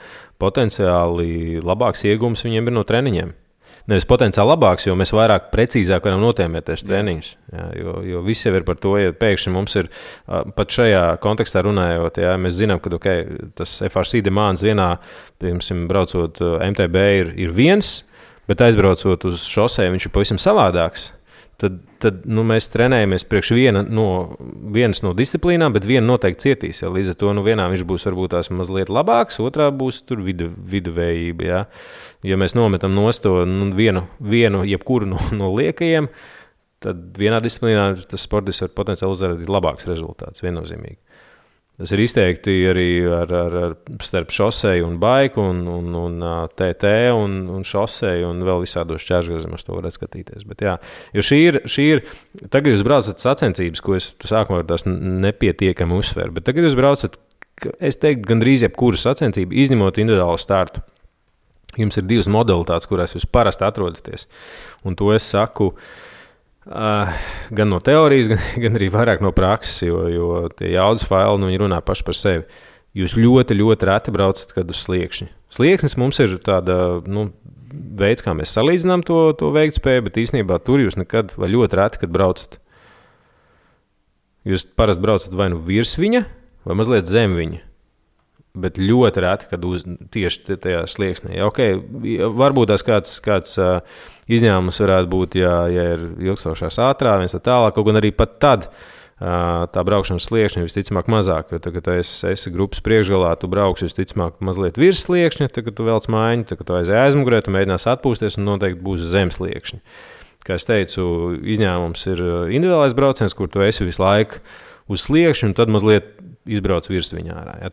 potenciāli labāks iegūms viņiem ir no treniņiem. Nevis potenciāli labāks, jo mēs vairāk precīzāk varam notēmēties treniņus. Jā, jo viss jau ir par to, ja pēkšņi mums ir, pat šajā kontekstā runājot, jā, mēs zinām, ka tas FRC demands vienā, piemēram, braucot MTB ir viens, bet aizbraucot uz šosei viņš ir pavisam savādāks. Tad mēs trenējamies priekš vienas no disciplīnām, bet viena noteikti cietīs. Ja? Līdz ar to vienā viņš būs varbūt tās mazliet labāks, otrā būs tur viduvējība. Ja? Ja mēs nometam nost to vienu jebkuru no liekajiem, tad vienā disciplīnā tas sportists var potenciāli uzrādīt labāks rezultāts, viennozīmīgi. Tas ir izteikti arī starp šoseju un baiku un TT un šoseju un vēl visādos šķērsgriezumos to varētu skatīties. Bet jā, jo šī ir, tagad jūs braucat sacensības, ko es sākumā tās nepietiekami uzsveru, bet tagad jūs braucat, es teiktu, gandrīz jebkuru sacensību, izņemot individuālu startu. Jums ir 2 modalitātes, kurās jūs parasti atrodaties. Un to es saku gan no teorijas, gan arī vairāk no prakses, jo tie jaudas faili, viņi runā paši par sevi. Jūs ļoti, ļoti reti braucat kad uz sliekšņi. Slieksnis mums ir tāda, veids, kā mēs salīdzinām to veiktspēju, bet īstenībā tur jūs nekad vai ļoti reti, kad braucat. Jūs parasti braucat vai nu virs viņa, vai mazliet zem viņa. Bet ļoti reti, kad tieši tajā slieksnī. Okay, varbūt tās kāds izņēmums varētu būt, ja ir ilgstošās ātrā, viens tālāk, kaut gan arī pat tad tā braukšanas sliekšņa visticamāk mazāk, jo tagad, kad esi grupas priekšgalā, tu brauks visticamāk mazliet virs sliekšņa, tagad tu velc mājiņu, tagad tu aizēj aizmugurē, tu mēģinās atpūsties un noteikti būs zem sliekšņa. Kā es teicu, izņēmums ir individuālais brauciens, kur tu esi visu laiku uz sliekšņu un tad mazliet izbrauc virs viņa ārā. Ja?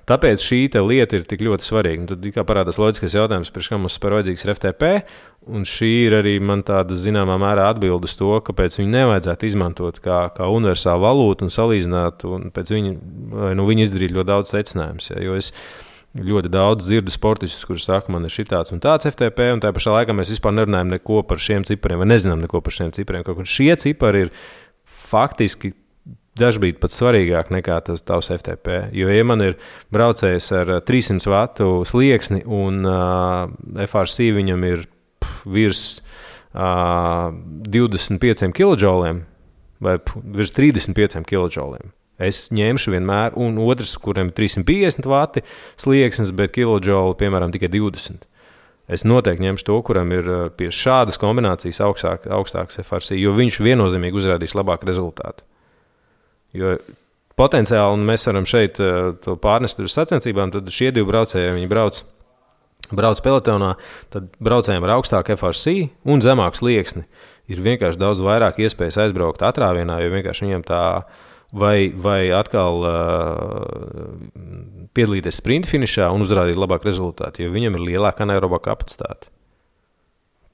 Tāpēc šī lieta ir tik ļoti svarīga. Un tad kā parādās loģiskais jautājums, par kā mums par vajadzīgs ir FTP, un šī ir arī man tāda zināmā mērā atbilde uz to, kāpēc viņu nevajadzētu izmantot kā universālu valūtu un salīdzināt, un pēc viņa izdarīt ļoti daudz secinājumus. Ja? Jo es ļoti daudz dzirdu sportistus, kurus saka, man ir šitāds un tāds FTP, un tā pašā laikā mēs vispār nerunājam neko par šiem cipariem, vai nezinām neko par šiem cipariem. Kaut šie cipari ir faktiski dažbrīd pat svarīgāk nekā tas tavs FTP. Jo, ja man ir braucējs ar 300 vatu slieksni un FRC viņam ir virs 25 kJ vai virs 35 kJ, es ņemšu vienmēr, un otrs, kuriem ir 350 vati slieksnis, bet kiloģoli, piemēram, tikai 20. Es noteikti ņemšu to, kuram ir pie šādas kombinācijas augstāks FRC, jo viņš viennozīmīgi uzrādīs labāku rezultātu. Jo potenciāli, un mēs varam šeit to pārnest uz sacensībām, tad šie 2 braucēji, viņi brauc pelotonā, tad braucējiem ar augstāku FRC un zemāku slieksni ir vienkārši daudz vairāk iespējas aizbraukt atrāvienā, jo vienkārši viņiem tā vai atkal piedalīties sprinta finišā un uzrādīt labāku rezultātu, jo viņam ir lielāka anaeroba kapacitāte.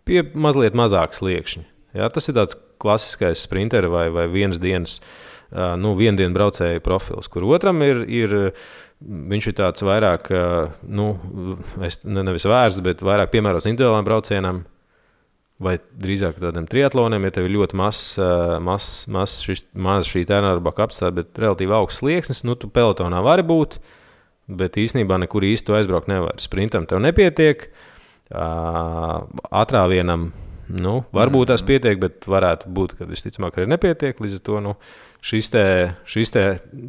Pie mazliet mazāk sliekšņi. Ja, tas ir tāds klasiskais sprinteri vai vienas dienas vienu dienu braucēju profils, kur otram viņš ir tāds vairāk, nevis vērsts, bet vairāk piemērots individuālām braucienam, vai drīzāk tādiem triatloniem, ja tev ir ļoti maz šī anaeroba kapacitāte, bet relatīvi augsts slieksnis, tu pelotonā vari būt, bet īstenībā nekur īsti tu aizbraukt nevar. Sprintam tev nepietiek, atrāvienam, varbūt tās pietiek, bet varētu būt, ka visticamāk arī nepietiek, līdz ar to, šis te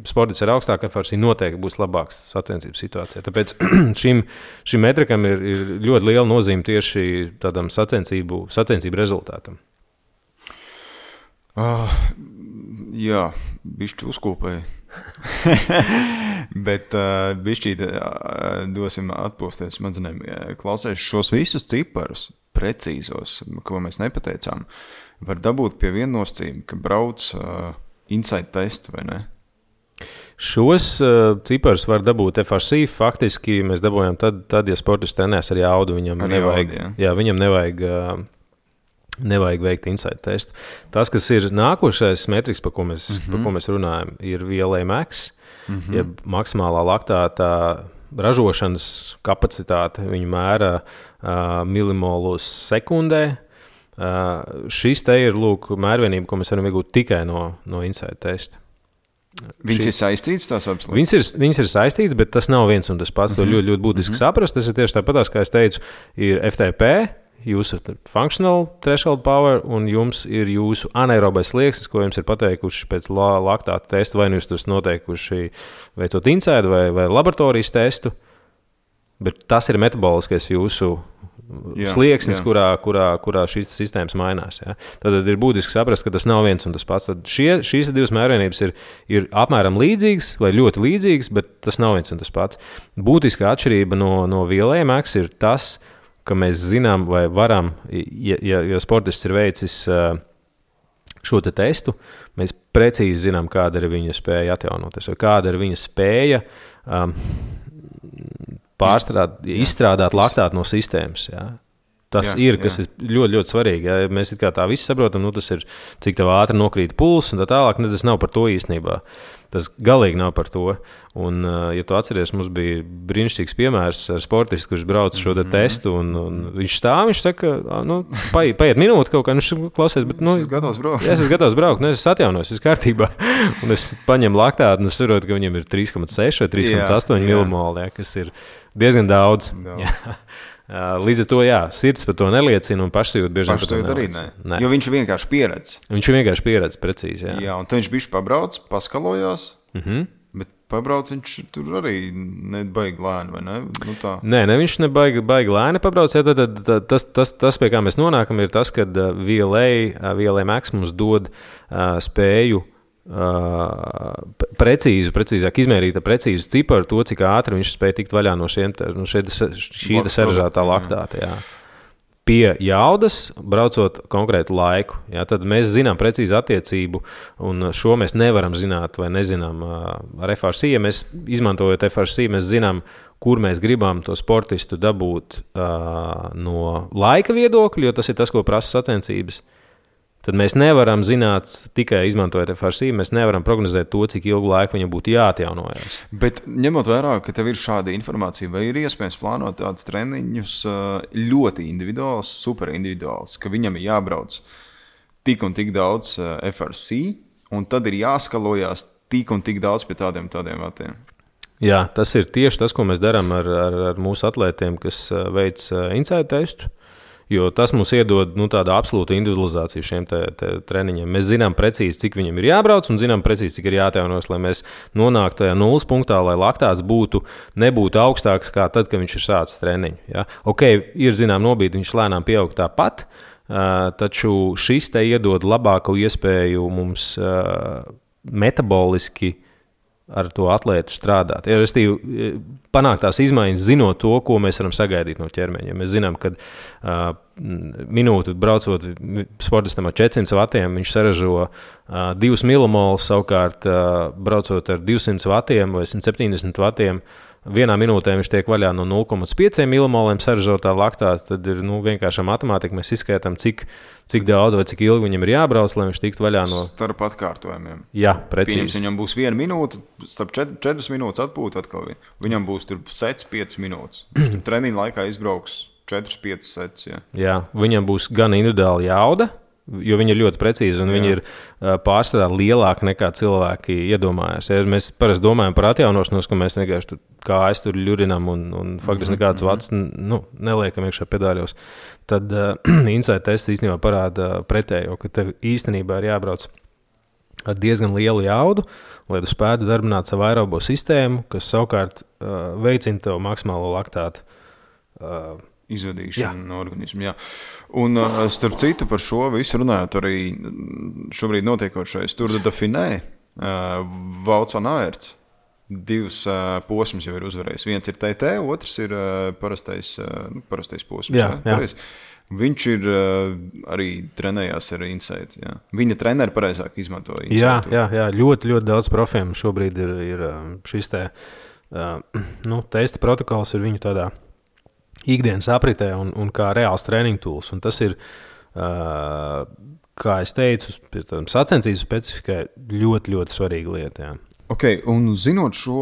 sports ar augstāku FRC noteikti būs labāks sacensības situācijā. Tāpēc šim metrikam ir ļoti liela nozīme tieši tādam sacensību rezultātam. Jā, bišķi uzkopēji. Bet bišķīt dosim atpūsties smadzenēm. Klausēs šos visus ciparus precīzos, ko mēs nepateicām, var dabūt pie viena nosacījuma, ka brauc inside testu, vai ne? Šos ciparus var dabūt FRC. Faktiski mēs dabūjām tad ja sportists trenēs ar jaudu, viņam nevajag veikt inside testu. Tas, kas ir nākošais metriks, par ko mēs runājam, ir VLA-max, jeb maksimālā laktāta ražošanas kapacitāte. Viņu mēra milimolus sekundē. Šis te ir mērvienība, ko mēs varam iegūt tikai no inside testa. Viņas ir saistītas tās absolūti? Viņas ir saistītas, bet tas nav viens un tas pats. To ļoti būtiski saprast. Tas ir tieši tāpatās, kā es teicu, ir FTP, jūsu functional threshold power, un jums ir jūsu anaerobais slieksnis, ko jums ir pateikuši pēc laktāta testa, vai jūs tos noteikuši veicot inside vai laboratorijas testu, bet tas ir metaboliskais jūsu slieksnis, kurā šīs sistēmas mainās. Ja? Tad ir būtiski saprast, ka tas nav viens un tas pats. Tad šīs 2 mērvienības ir apmēram līdzīgas vai ļoti līdzīgas, bet tas nav viens un tas pats. Būtiskā atšķirība no VLA-max ir tas, ka mēs zinām vai varam, ja sportists ir veicis šo te testu, mēs precīzi zinām, kāda ir viņa spēja atjaunoties, vai kāda ir viņa spēja izstrādāt laktātu no sistēmas. Ja? Tas ir ļoti, ļoti svarīgi. Ja mēs tā visi saprotam, tas ir, cik tev ātri nokrīt pulss un tā tālāk, tas nav par to īstenībā. Tas galīgi nav par to. Un, ja tu atceries, mums bija brīnišķīgs piemērs ar sportistu, kurš brauc šo testu, un viņš stāv, viņš saka, paiet minūte kaut kā, viņš klausies, bet, es esmu gatavs braukt. Es esmu gatavs braukt, es atjaunojos, viss kārtībā. Un es paņemu laktātu, un es saprotu, ka viņam ir 3,6 vai 3,8 milimoli, kas ir diezgan daudz. Līdz ar to, sirds par to neliecina un pašsajūta bieži vien par to neliecina. Ne. Jo viņš vienkārši pieredz. Viņš vienkārši pieredz precīzi, Jā, un tad viņš bišķi pabrauc, paskalojās, bet pabrauc viņš tur arī nebaigi lēni, vai ne? Tā. Nē, viņš nebaigi lēni pabrauc. Tas, pie kā mēs nonākam, ir tas, ka VLA Max mums dod spēju precīzāk izmērīt precīzu ciparu to, cik ātri viņš spēja tikt vaļā no šī sarežģītā laktāta. Jā. Pie jaudas, braucot konkrētu laiku. Jā, tad mēs zinām precīzi attiecību, un šo mēs nevaram zināt vai nezinām ar FRC. Ja mēs izmantojot FRC, mēs zinām, kur mēs gribam to sportistu dabūt no laika viedokļa, jo tas ir tas, ko prasa sacensības. Tad mēs nevaram zināt, tikai izmantojot FRC, mēs nevaram prognozēt to, cik ilgu laiku viņam būtu jāatjaunojas. Bet ņemot vērā, ka tev ir šāda informācija, vai ir iespējams plānot tādus treniņus ļoti individuāls, super individuāls, ka viņam ir jābrauc tik un tik daudz FRC, un tad ir jāskalojās tik un tik daudz pie tādiem vatiem? Jā, tas ir tieši tas, ko mēs darām ar mūsu atlētiem, kas veic inside testu. Jo tas mums iedod tādu absolūtu individualizāciju šiem treniņiem. Mēs zinām precīzi, cik viņam ir jābrauc, un zinām precīzi, cik ir jāatjaunojas, lai mēs nonāktu tajā nulles punktā, lai laktāts nebūtu augstāks kā tad, kad viņš ir sācis treniņu. Ja? Ok, ir zinām nobīdi, viņš lēnām pieaug tāpat, taču šis te iedod labāku iespēju mums metaboliski ar to atlētu strādāt. Ja, restīvi, panākt tās izmaiņas, zinot to, ko mēs varam sagaidīt no ķermeņa. Ja mēs zinām, ka minūti braucot sportistam ar 400 vatiem, viņš saražo 2 milimolus, savukārt braucot ar 200 vatiem vai 170 vatiem, vienā minūtē viņš tiek vaļā no 0,5 milimoliem saražotā laktāta, tad ir vienkārši matemātika. Mēs izskaitām, cik daudz vai cik ilgi viņam ir jābrauc, lai viņš tiktu vaļā no... Starp atkārtojumiem. Jā, precīzi. Pieņems, viņam būs 1 minūte, starp 4 minūtes atpūta atkal. Viņam būs tur sets 5 minūtes. Viņš tur treniņa laikā izbrauks 4-5 sets. Jā, viņam būs gan individuāli jauda, jo viņi ir ļoti precīzi un viņi ir pārsvarā lielāki nekā cilvēki iedomājas. Ja mēs parasti domājam par atjaunošanos, ka mēs vienkārši tur kājas tur ļurinam un faktiski nekādas vats neliekam iekšā pedāļos, tad inside tests īstenībā parāda pretējo, ka tev īstenībā ir jābrauc ar diezgan lielu jaudu, lai tu spētu darbināt savu aerobo sistēmu, kas savukārt veicina tev maksimālo laktātu izvadīšanu no organismu. Jā. Un starp citu par šo visu runājot arī šobrīd notiekošais Tour de Dauphiné, Wout van Aert, 2 posmus jau ir uzvarējis. Viens ir TT, otrs ir parastais posms. Jā. Viņš ir arī trenējās ar Insight. Jā. Viņa treneri pareizāk izmanto Insight. Jā, ļoti, ļoti daudz profiem šobrīd ir šis testa protokols ir viņu tādā ikdienas apritē un kā reāls treniņu tools. Un tas ir, kā es teicu, sacensību specifikai ļoti, ļoti svarīga lieta. Jā. Ok, un zinot šo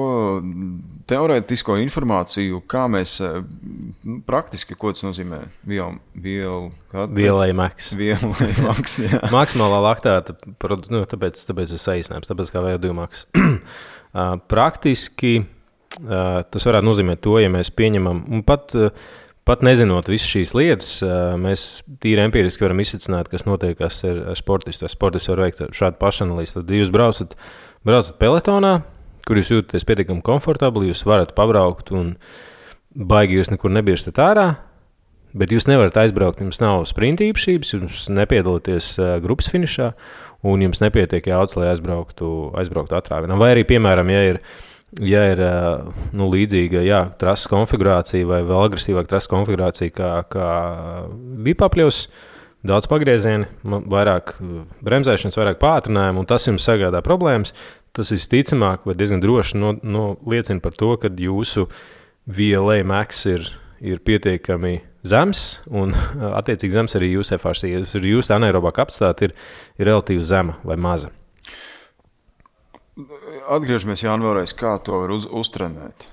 teorētisko informāciju, kā mēs praktiski, ko tas nozīmē? VLA Max. VLA Max, jā. Maksimālā laktāta, tāpēc es saīsinājums, tāpēc kā VO2 Max. Praktiski tas varētu nozīmēt to, ja mēs pieņemam, un pat nezinot visas šīs lietas, mēs tīri empiriski varam izsacināt, kas notiekās ar sportistu. Sportists var veikt šādu pašanalīzi. Tad jūs braucat peletonā, kur jūs jūtaties pietiekami komfortabli, jūs varat pabraukt un baigi jūs nekur nebirstat ārā, bet jūs nevarat aizbraukt, jums nav sprinta īpašības, jums nepiedalīties grupas finišā un jums nepietiek jaudas, lai aizbrauktu atrāvienā. Vai arī, piemēram, ja ir līdzīga trases konfigurācija vai vēl agresīvāka trases konfigurācija kā bija papļaus, daudz pagriezieni, vairāk bremzēšanas, vairāk pātrinājumu, un tas jums sagādā problēmas. Tas visticamāk vai diezgan droši liecina par to, ka jūsu VLA max ir pietiekami zems, un attiecīgi zems arī jūsu FRC. Jūsu anaerobā kapacitāte ir relatīvi zema vai maza. Atgriežamies, Jāni, vēlreiz, kā to var uztrenēt.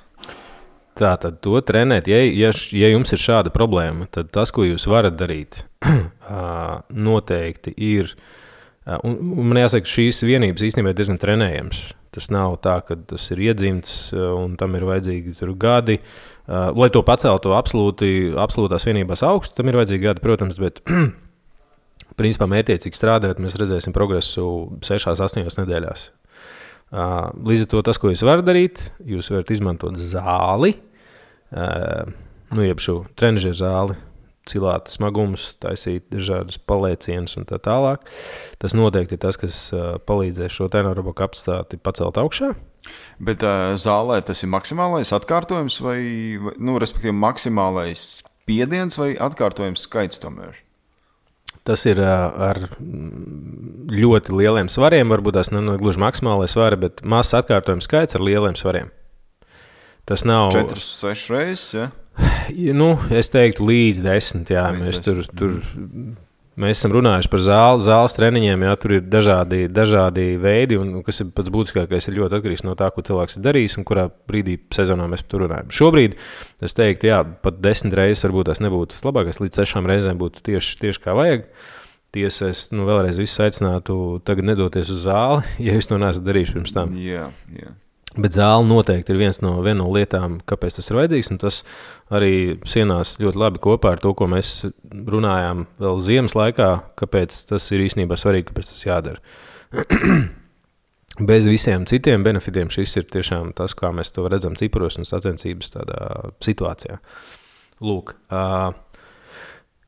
Tātad to trenēt, ja jums ir šāda problēma, tad tas, ko jūs varat darīt, noteikti ir. Un man jāsaka, šīs vienības īstenībā ir diezgan trenējams. Tas nav tā, ka tas ir iedzimts un tam ir vajadzīgi gadi. Lai to paceltu absolūtās vienībās augstu, tam ir vajadzīgi gadi, protams, bet principā mērķiecīgi strādājot, mēs redzēsim progresu 6-8 nedēļās. Līdz ar to tas, ko jūs varat darīt, jūs varat izmantot zāli, jeb šo trenižeru zāli, cilāt smagumus, taisīt dažādas palēcienus un tā tālāk. Tas noteikti ir tas, kas palīdzēs šo anaerobo kapacitāti pacelt augšā. Bet zālē tas ir maksimālais atkārtojums vai respektīvi maksimālais spiediens vai atkārtojums skaits tomēr? Tas ir ar ļoti lieliem svariem, varbūt tās ne gluži maksimālais svari, bet mazs atkārtojums skaits ar lieliem svariem. Tas nav 4-6 reizes, ja? Es teiktu līdz 10, jā. Mēs esam runājuši par zāles treniņiem, jā, tur ir dažādi veidi, un kas ir pats būtiskākais, ir ļoti atkarīgs no tā, ko cilvēks ir darījis un kurā brīdī sezonā mēs par to runājam. Šobrīd es teiktu, jā, pat 10 reizes varbūt tās nebūtu labākais, līdz 6 reizēm būtu tieši kā vajag. Tiesa, es vēlreiz visus aicinātu tagad nedoties uz zāli, ja jūs to neesat darījuši pirms tam. Jā. Bet zāle noteikti ir viena no lietām, kāpēc tas ir vajadzīgs, un tas arī sienās ļoti labi kopā ar to, ko mēs runājām vēl ziemas laikā, kāpēc tas ir īstenībā svarīgi, kāpēc tas jādara. Bez visiem citiem benefitiem šis ir tiešām tas, kā mēs to redzam ciparos un sacensības tādā situācijā. Lūk,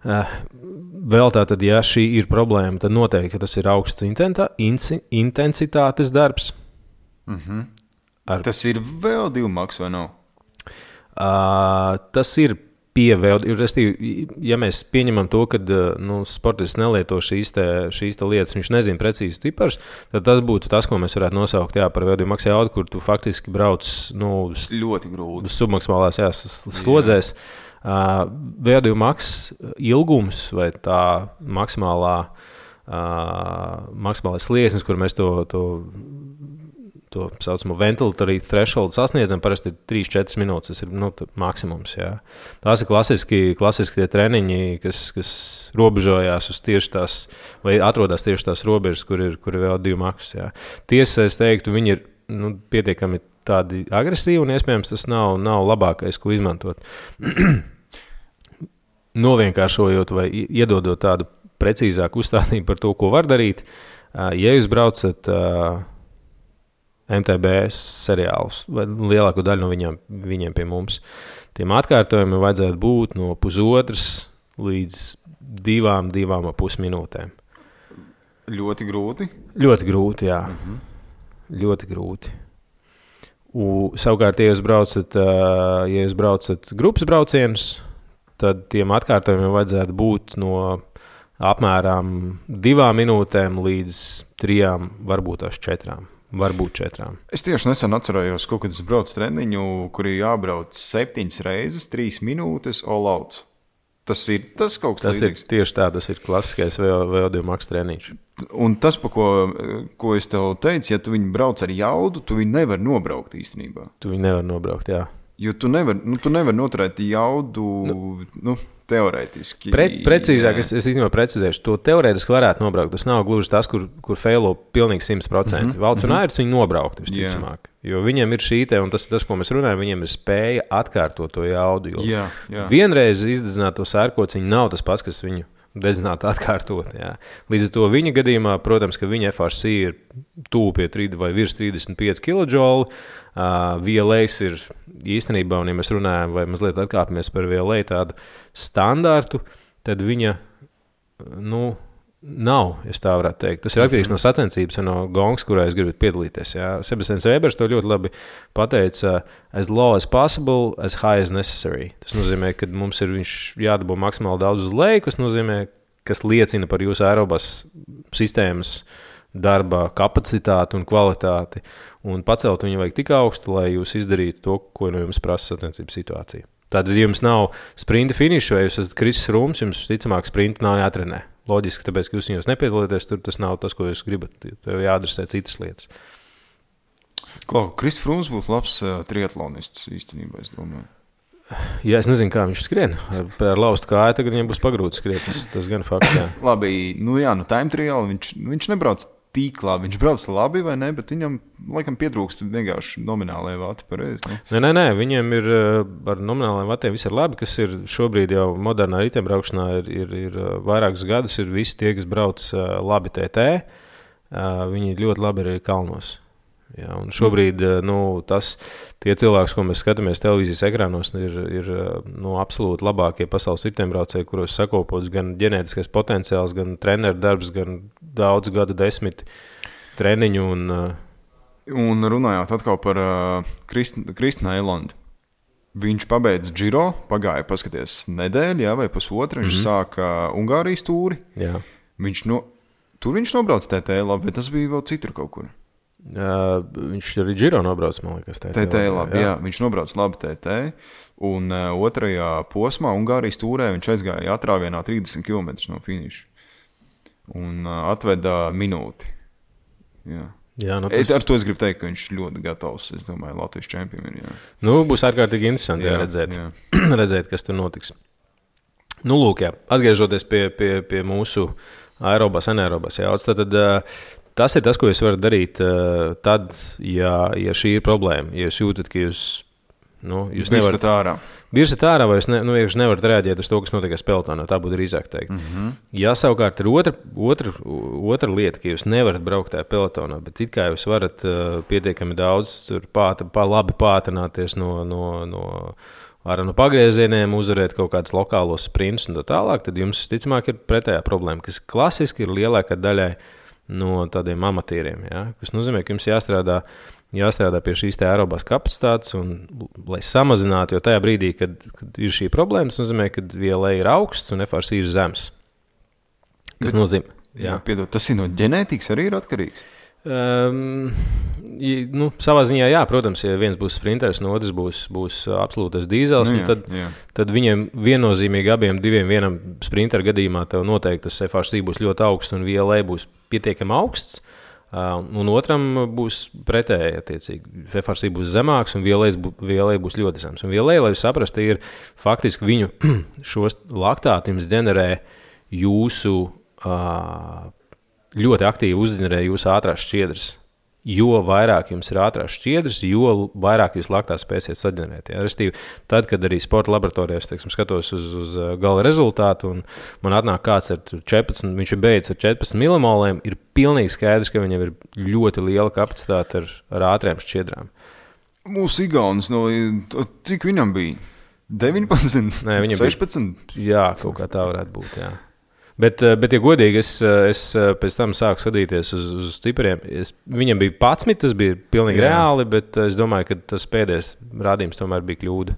vēl tātad, ja šī ir problēma, tad noteikti tas ir augsts intensitātes darbs. Tas ir VO2 max vai nav? Tas ir pie VO2. Ja mēs pieņemam to, ka sportists nelieto šīs lietas, viņš nezina precīzi ciparus, tad tas būtu tas, ko mēs varētu nosaukt par VO2 max jaudu, kur tu faktiski brauc ļoti grūti. Submaksimālās slodzēs. VO2 max ilgums vai tā maksimālais slieksnis, kur mēs to saucamo ventilatory threshold sasniedzam, parasti ir 3-4 minūtes. Tas ir maksimums. Jā. Tās ir klasiski tie treniņi, kas robežojās uz tieši tās, vai atrodas tieši tās robežas, kur ir VO2 max. Jā. Tiesa, es teiktu, viņi ir pietiekami tādi agresīvi, un iespējams tas nav labākais, ko izmantot. Novienkāršojot vai iedodot tādu precīzāku uzstādību par to, ko var darīt, ja jūs braucat MTB seriālus, vai lielāko daļu no viņiem pie mums. Tiem atkārtojumiem vajadzētu būt no 1,5 līdz 2,5 minūtēm. Ļoti grūti? Ļoti grūti, jā. Ļoti grūti. Savukārt, ja jūs braucat grupas braucienus, tad tiem atkārtojumiem vajadzētu būt no apmēram 2 minūtēm līdz 3, varbūt 4. Varbūt 4. Es tieši nesen atcerējos, kaut kad es braucu treniņu, kur ir jābrauc 7 reizes, 3 minūtes all out. Tas ir tas kaut kas līdzīgs. Tieši tā, tas ir klasiskais VO2 max treniņš. Un tas, ko es tev teicu, ja tu viņu brauc ar jaudu, tu viņu nevar nobraukt īstenībā. Tu viņu nevar nobraukt, jā. Jo tu nevar noturēt jaudu, teorētiski. Precīzāk, es īstenībā precizēšu, to teorētiski varētu nobraukt. Tas nav gluži tas, kur feilo pilnīgi 100%. Valds un Airis viņu nobraukt, visticamāk. Jo viņiem ir šī te, un tas, ko mēs runājam, viņiem ir spēja atkārtot to jaudu. Jo vienreiz izdedzināt to sērkociņu nav tas pats, kas viņu dedzināt atkārtot. Jā. Līdz ar to viņa gadījumā, protams, ka viņa FRC ir tuvu pie 3 vai virs 35 kJ. VLAs ir īstenībā, un ja mēs runājam vai mazliet atkāpamies par VLA tādu standārtu, tad viņa, nav, es tā varētu teikt. Tas ir atkarīgs no sacensības un no gongas, kurā jūs gribat piedalīties. Jā. Sebastians Vēbers to ļoti labi pateica, as low as possible, as high as necessary. Tas nozīmē, ka mums ir viņš jādabū maksimāli daudz uz leju, kas nozīmē, kas liecina par jūsu aerobās sistēmas darba kapacitāti un kvalitāti, un pacelt viņu vajag tik augstu, lai jūs izdarītu to, ko no jums prasa sacensību situācija. Tātad, ja jums nav sprinta finiša, vai jūs esat Krisis Rūms, jums ticamāk sprintu nav jātrenē. Loģiski, tāpēc, ka jūs viņos nepiedalīties, tur tas nav tas, ko jūs gribat. Tev jāadresē citas lietas. Krisis Rūms būtu labs triatlonists īstenībā, es domāju. Jā, es nezinu, kā viņš skrien. Ar laustu kāju tagad viņam būs pagrūti skriet. Tas gan fakts, jā. Labi, time trial viņš nebrauc tik labi. Viņš brauc labi vai ne, bet viņam, laikam, pietrūkst vienkārši nominālajai vati pareizi. Ne? Nē, viņiem ir ar nominālajiem vatiem viss ir labi, kas ir šobrīd jau modernā riteņbraukšanā ir vairākus gadus, ir visi tie, kas brauc labi TT. Viņi ļoti labi ir kalnos. Jā, un šobrīd tie cilvēki, ko mēs skatāmies televīzijas ekrānos, ir absolūti labākie pasaules riteņbraucēji, kuros sakopots gan ģenētiskais potenciāls, gan treneru darbs, gan daudz gadu desmit treniņu. Un runājot atkal par Kristinu Eilandu. Viņš pabeidz Giro, pagāja paskaties nedēļu vai pusotru, viņš sāka Ungārijas tūri. Jā. Tur viņš nobrauc TT labi, bet tas bija vēl citur kaut kur. Viņš arī Giro nobrauc, man liekas, TT labi, jā. Viņš nobrauc labi TT, un otrajā posmā Ungārijas tūrē viņš aizgāja atrāvienā 30 km no finiša un atveda minūti. Jā. Ar to es gribu teikt, ka viņš ļoti gatavs, es domāju, Latvijas čempionam. Būs ārkārtīgi interesanti redzēt, redzēt, kas tur notiks. Lūk, jā, atgriežoties pie mūsu aerobās, anaerobās jauts, tad tas ir tas, ko jūs varat darīt tad, ja šī ir problēma. Ja jūs jūtat, ka jūs nevarat ārā. Birsat ārā, vai jūs nevarat reaģēt uz to, kas notiek pelotonā, tā būtu drīzāk teikt. Ja savukārt ir otra lieta, ka jūs nevarat braukt tajā pelotonā, bet it kā jūs varat pietiekami daudz labi pātrināties no pagriezieniem, uzvarēt kaut kādus lokālos sprintus un tā tālāk, tad jums, ticamāk, ir pretējā problēma, kas klasiski ir lielākā daļai no tādiem amatieriem, kas nozīmē, ka jums jāstrādā pie šīs aerobās kapacitātes, un, lai samazinātu, jo tajā brīdī, kad ir šī problēma, tas nozīmē, ka VLA ir augsts un FRC ir zems. Kas nozīmē? Piedod, tas ir no ģenētikas arī ir atkarīgs? Savā ziņā, jā, protams, ja viens būs sprinters, no otrs būs absolūtais dīzels, tad viņiem viennozīmīgi abiem vienam sprinteru gadījumā tev noteikti tas FRC būs ļoti augsts un VLA būs pietiekami augsts, un otram būs pretēji attiecīgi. FRC būs zemāks un VLA būs ļoti zems. Un VLA, lai jūs saprastu, ir faktiski viņu šos laktāti jums ģenerē jūsu ļoti aktīvi uzģenerē jūsu ātrās šķiedras. Jo vairāk jums ir ātrās šķiedras, jo vairāk jūs laktās spēsiet saģenerēt. Restīvi, tad, kad arī sporta laboratorijās, skatos uz gala rezultātu, un man atnāk kāds ar 14, viņš ir beidzis ar 14 milimoliem, ir pilnīgi skaidrs, ka viņam ir ļoti liela kapacitāte ar ātriem šķiedrām. Mūsu igaunis, cik viņam bija? 19? Nē, 16? Jā, kaut kā tā varētu būt, jā. Bet, ja godīgi, es pēc tam sāku skatīties uz cipariem. Viņam bija 11, tas bija pilnīgi reāli, bet es domāju, ka tas pēdējais rādījums tomēr bija kļūda.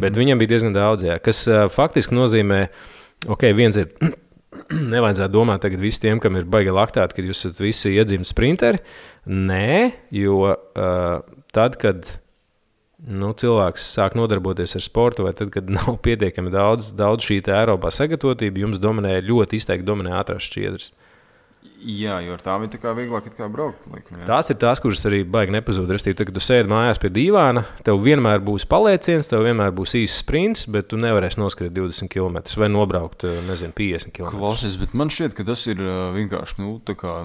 Bet viņam bija diezgan daudz, kas faktiski nozīmē, viens ir, nevajadzētu domāt tagad visi tiem, kam ir baigi laktāti, kad jūs esat visi iedzimti sprinteri. Nē, jo tad, kad cilvēks sāk nodarboties ar sportu, vai tad, kad nav pietiekami daudz šī aerobā sagatavotība, jums ļoti izteikti dominē ātrās šķiedras. Jā, jo ar tām ir tā kā vieglāk braukt. Tās ir tās, kuras arī baigi nepazūd. Restīvi, tad, kad tu sēdi mājās pie dīvāna, tev vienmēr būs palieciens, tev vienmēr būs īsts sprints, bet tu nevarēsi noskriet 20 km vai nobraukt, 50 km. Klausies, bet man šķiet, ka tas ir vienkārši, tā kā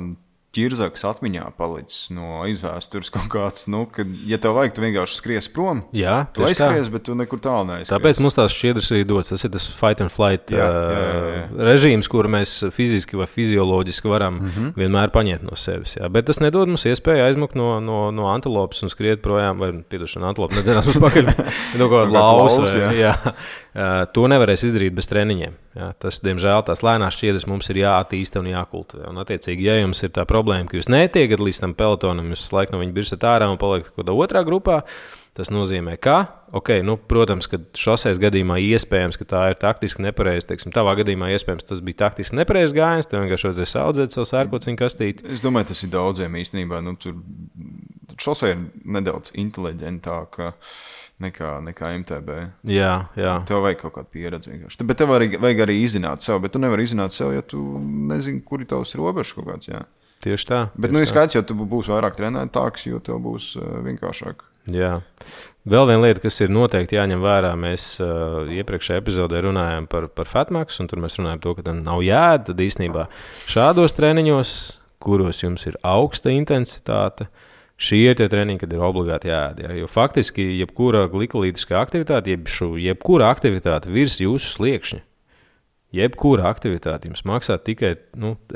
ķirzaks atmiņā palicis no izvēstures kaut kāds, kad, ja tev vajag, tu vienkārši skries prom. Jā, tu aizskries, bet tu nekur tālu neaizskries. Tāpēc mums tās šķiedras arī dots. Tas ir tas fight and flight režīms, kuru mēs fiziski vai fizioloģiski varam vienmēr paņemt no sevis. Jā. Bet tas nedod mums iespēju aizmukt no antilopes un skriet projām, vai, piedošana, antilope nedzenās uz pakaļ, no kaut kāda laus. Jā. To nevarēs izdarīt bez treniņiem. Jā. Tas, diemžēl, tās lēnās šķiedras mums ir jāattīsta un jākultivē. Un, attiecīgi, ja jums ir tā problēma, ka jūs netiekat līdz tam pelotonam, jūs laiku no viņa birsat ārā un paliekat kaut kādā otrā grupā, Tas nozīmē, ka, protams, ka šoseis gadījumā iespējams, ka tā ir taktiski nepareizi. Teiksim, tavā gadījumā iespējams tas bija taktiski nepareizi gājiens, tev vienkārši vajadzēja saudzēt savu sērkociņu kastīti. Es domāju, tas ir daudziem īstenībā. Tur šosei ir nedaudz inteliģentāka nekā MTB. Jā. Tev vajag kaut kādu pieredzi vienkārši. Bet tev vajag arī izzināt sev, bet tu nevari izzināt sev, ja tu nezini, kur ir tavs robežs kaut kāds, jā. Tieši tā. Bet, ir skaidrs, jo tu būsi vairāk trenētāks, jo tev būs vienkāršāk. Jā. Vēl viena lieta, kas ir noteikti jāņem vērā, mēs iepriekšējā epizodē runājām par fatmax, un tur mēs runājām to, ka tam nav jēda. Tad īstenībā šādos treniņos, kuros jums ir augsta intensitāte, šie ir tie treniņi, kad ir obligāti jāēd. Jo faktiski, jebkura glikolītiskā aktivitāte, jebkura aktivitāte virs jūsu sliekšņa, jebkura aktivitāte jums maksā tikai,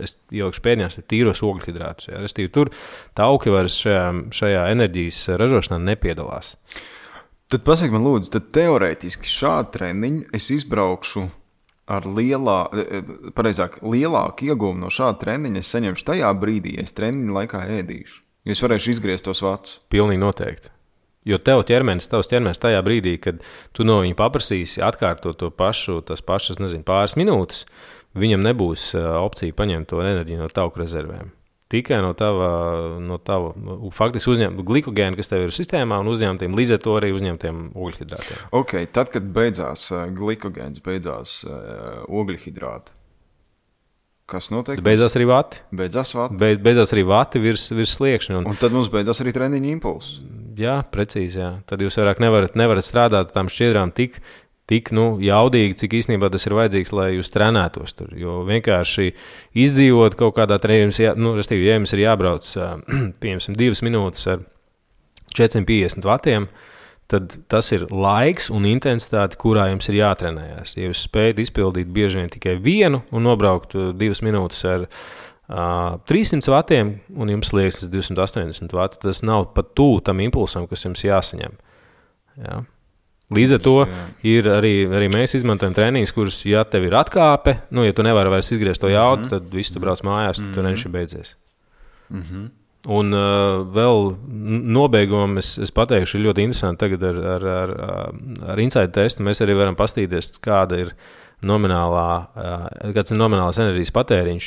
es ielikšu pēdiņās, tīros ogļhidrātus. Restīvi, tur tauki vairs šajā enerģijas ražošanā nepiedalās. Tad pasaki man lūdzu, tad teorētiski šādu treniņu es izbraukšu ar lielāku ieguvumu no šāda treniņa es saņemšu tajā brīdī, ja es treniņu laikā ēdīšu. Jo es varēšu izgriezt tos vatus. Pilnīgi noteikti. Jo tavs ķermenis tajā brīdī, kad tu no viņa paprasīsi atkārtot tās pašas, pāris minūtes, viņam nebūs opcija paņemt to enerģiju no tauku rezervēm. Tikai no tava faktiski uzņemt glikogēnu, kas tev ir sistēmā, un uzņemtiem līdz ar to arī uzņemtiem ogļhidrātiem. Ok, tad, kad beidzās glikogēns, beidzās ogļhidrāti, kas notiek? Beidzās arī vati. Beidzās arī vati virs sliekšņa. Un tad mums beidzās arī treniņa impulss. Jā, precīzi, jā. Tad jūs vairāk nevarat strādāt tām šķiedrām tik jaudīgi, cik īstenībā tas ir vajadzīgs, lai jūs trenētos tur. Jo vienkārši izdzīvot kaut kādā treniņā, ja jums ir jābrauc, piemēram, 2 minūtes ar 450 vatiem, tad tas ir laiks un intensitāte, kurā jums ir jātrenējas. Ja jūs spējat izpildīt bieži vien tikai vienu un nobraukt 2 minūtes ar 300 vatiem un jums liekas 280 vati, tas nav pat tuvu tam impulsam, kas jums jāsaņem. Jā. Līdz ar to ir arī mēs izmantojam treniņus, kurus, ja tev ir atkāpe, ja tu nevari vairs izgriezt to jaudu, tad viss tu brauc mājās, tu treniņš ir beidzies. Un vēl nobeigumam es pateikšu, ir ļoti interesanti tagad ar inside testu. Mēs arī varam pastīties, kāds ir nominālās enerģijas patēriņš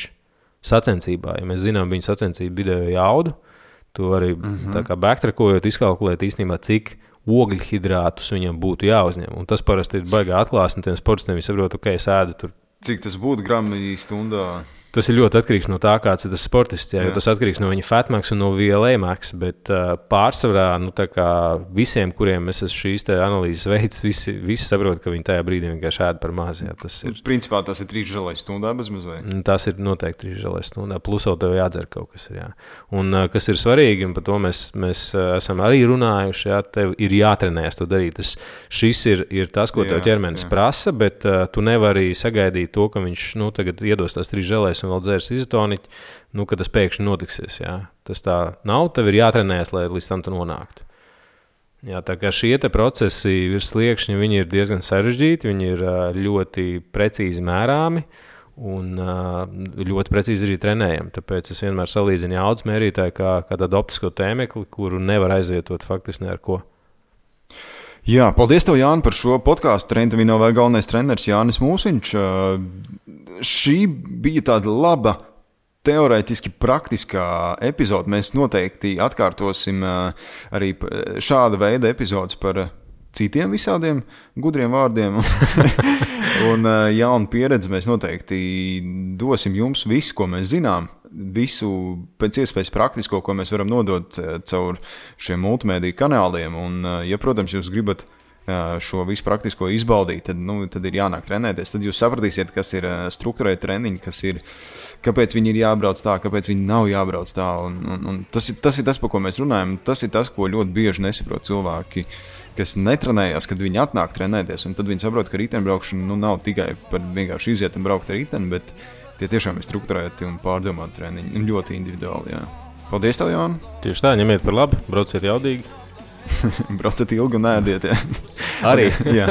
sacensībā. Ja mēs zinām viņu sacensību vidējo jaudu, to arī tā kā backtrackojot, izkalkulēt īstenībā, cik ogļhidrātus viņam būtu jāuzņem. Un tas parasti ir baigā atklāsni tiem sportistiem. Viņi saprot, es ēdu tur. Cik tas būtu grami stundā? Tas ir ļoti atkarīgs no tā, kāds ir tas sportists. Jo tas atkarīgs no viņa fatmax un no VLA-max. Bet pārsvarā visiem, kuriem es esmu šīs analīzes veids, visi saprot, ka viņi tajā brīdī vienkārši ēd par maz. Tas ir. Principā tas ir 3 želēs stundā bezmaz vai? Tas ir noteikti 3 želēs stundā. Plus vēl tev jādzer kaut kas. Jā. Un kas ir svarīgi, un par to mēs esam arī runājuši, tev ir jātrenējas to darīt. Šis ir tas, ko tev ķermenis prasa, bet tu nevari sagaidīt to, ka viņš tagad iedos tās 3 želēs un vēl dzērs izotoniķi, ka tas pēkšņi notiksies. Jā. Tas tā nav, tev ir jātrenējas, lai līdz tam tu nonāktu. Jā, tā kā šie procesi virs sliekšņa, viņi ir diezgan sarežģīti, viņi ir ļoti precīzi mērāmi un ļoti precīzi arī trenējami. Tāpēc es vienmēr salīdzinu jaudas mērītāju kā tādu optisko tēmekli, kuru nevar aizvietot faktiski ne ar ko. Jā, paldies tev, Jāni, par šo podkāstu. Trenta Vinovē galvenais treneris Jānis Mūsiņš. Šī bija tāda laba, teorētiski praktiskā epizode. Mēs noteikti atkārtosim arī šāda veida epizodes par citiem visādiem gudriem vārdiem un jaunu pieredzi. Mēs noteikti dosim jums visu, ko mēs zinām, visu pēc iespējas praktisko, ko mēs varam nodot caur šiem multimēdiju kanāliem. Un, ja, protams, jūs gribat šo visu praktisko izbaudīt, tad ir jānāk trenēties. Tad jūs sapratīsiet, kas ir strukturēti treniņi, kāpēc viņi ir jābrauc tā, kāpēc viņi nav jābrauc tā. Un tas ir tas, par ko mēs runājam. Tas ir tas, ko ļoti bieži nesaprot cilvēki, kas netrenējās, kad viņi atnāk trenēties. Un tad viņi saprot, ka riteņbraukšana nav tikai par vienkārši iziet un braukt ar riteni, bet tie tiešām ir strukturēti un pārdomāti treniņi. Un ļoti individuāli, jā. Paldies tev, Jāni! Tieši tā, ņemiet par labi, brauciet jaudīgi. Brauciet ilgi un ēdiet, jā. Arī. Jā.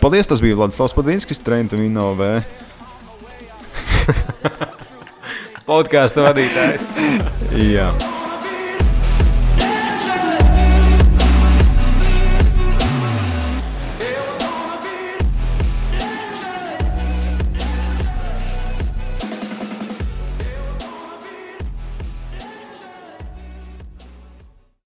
Paldies, tas bija Vladislavs Padvinskis, Trenta Vinovē. Podkāsta vadītājs. Jā.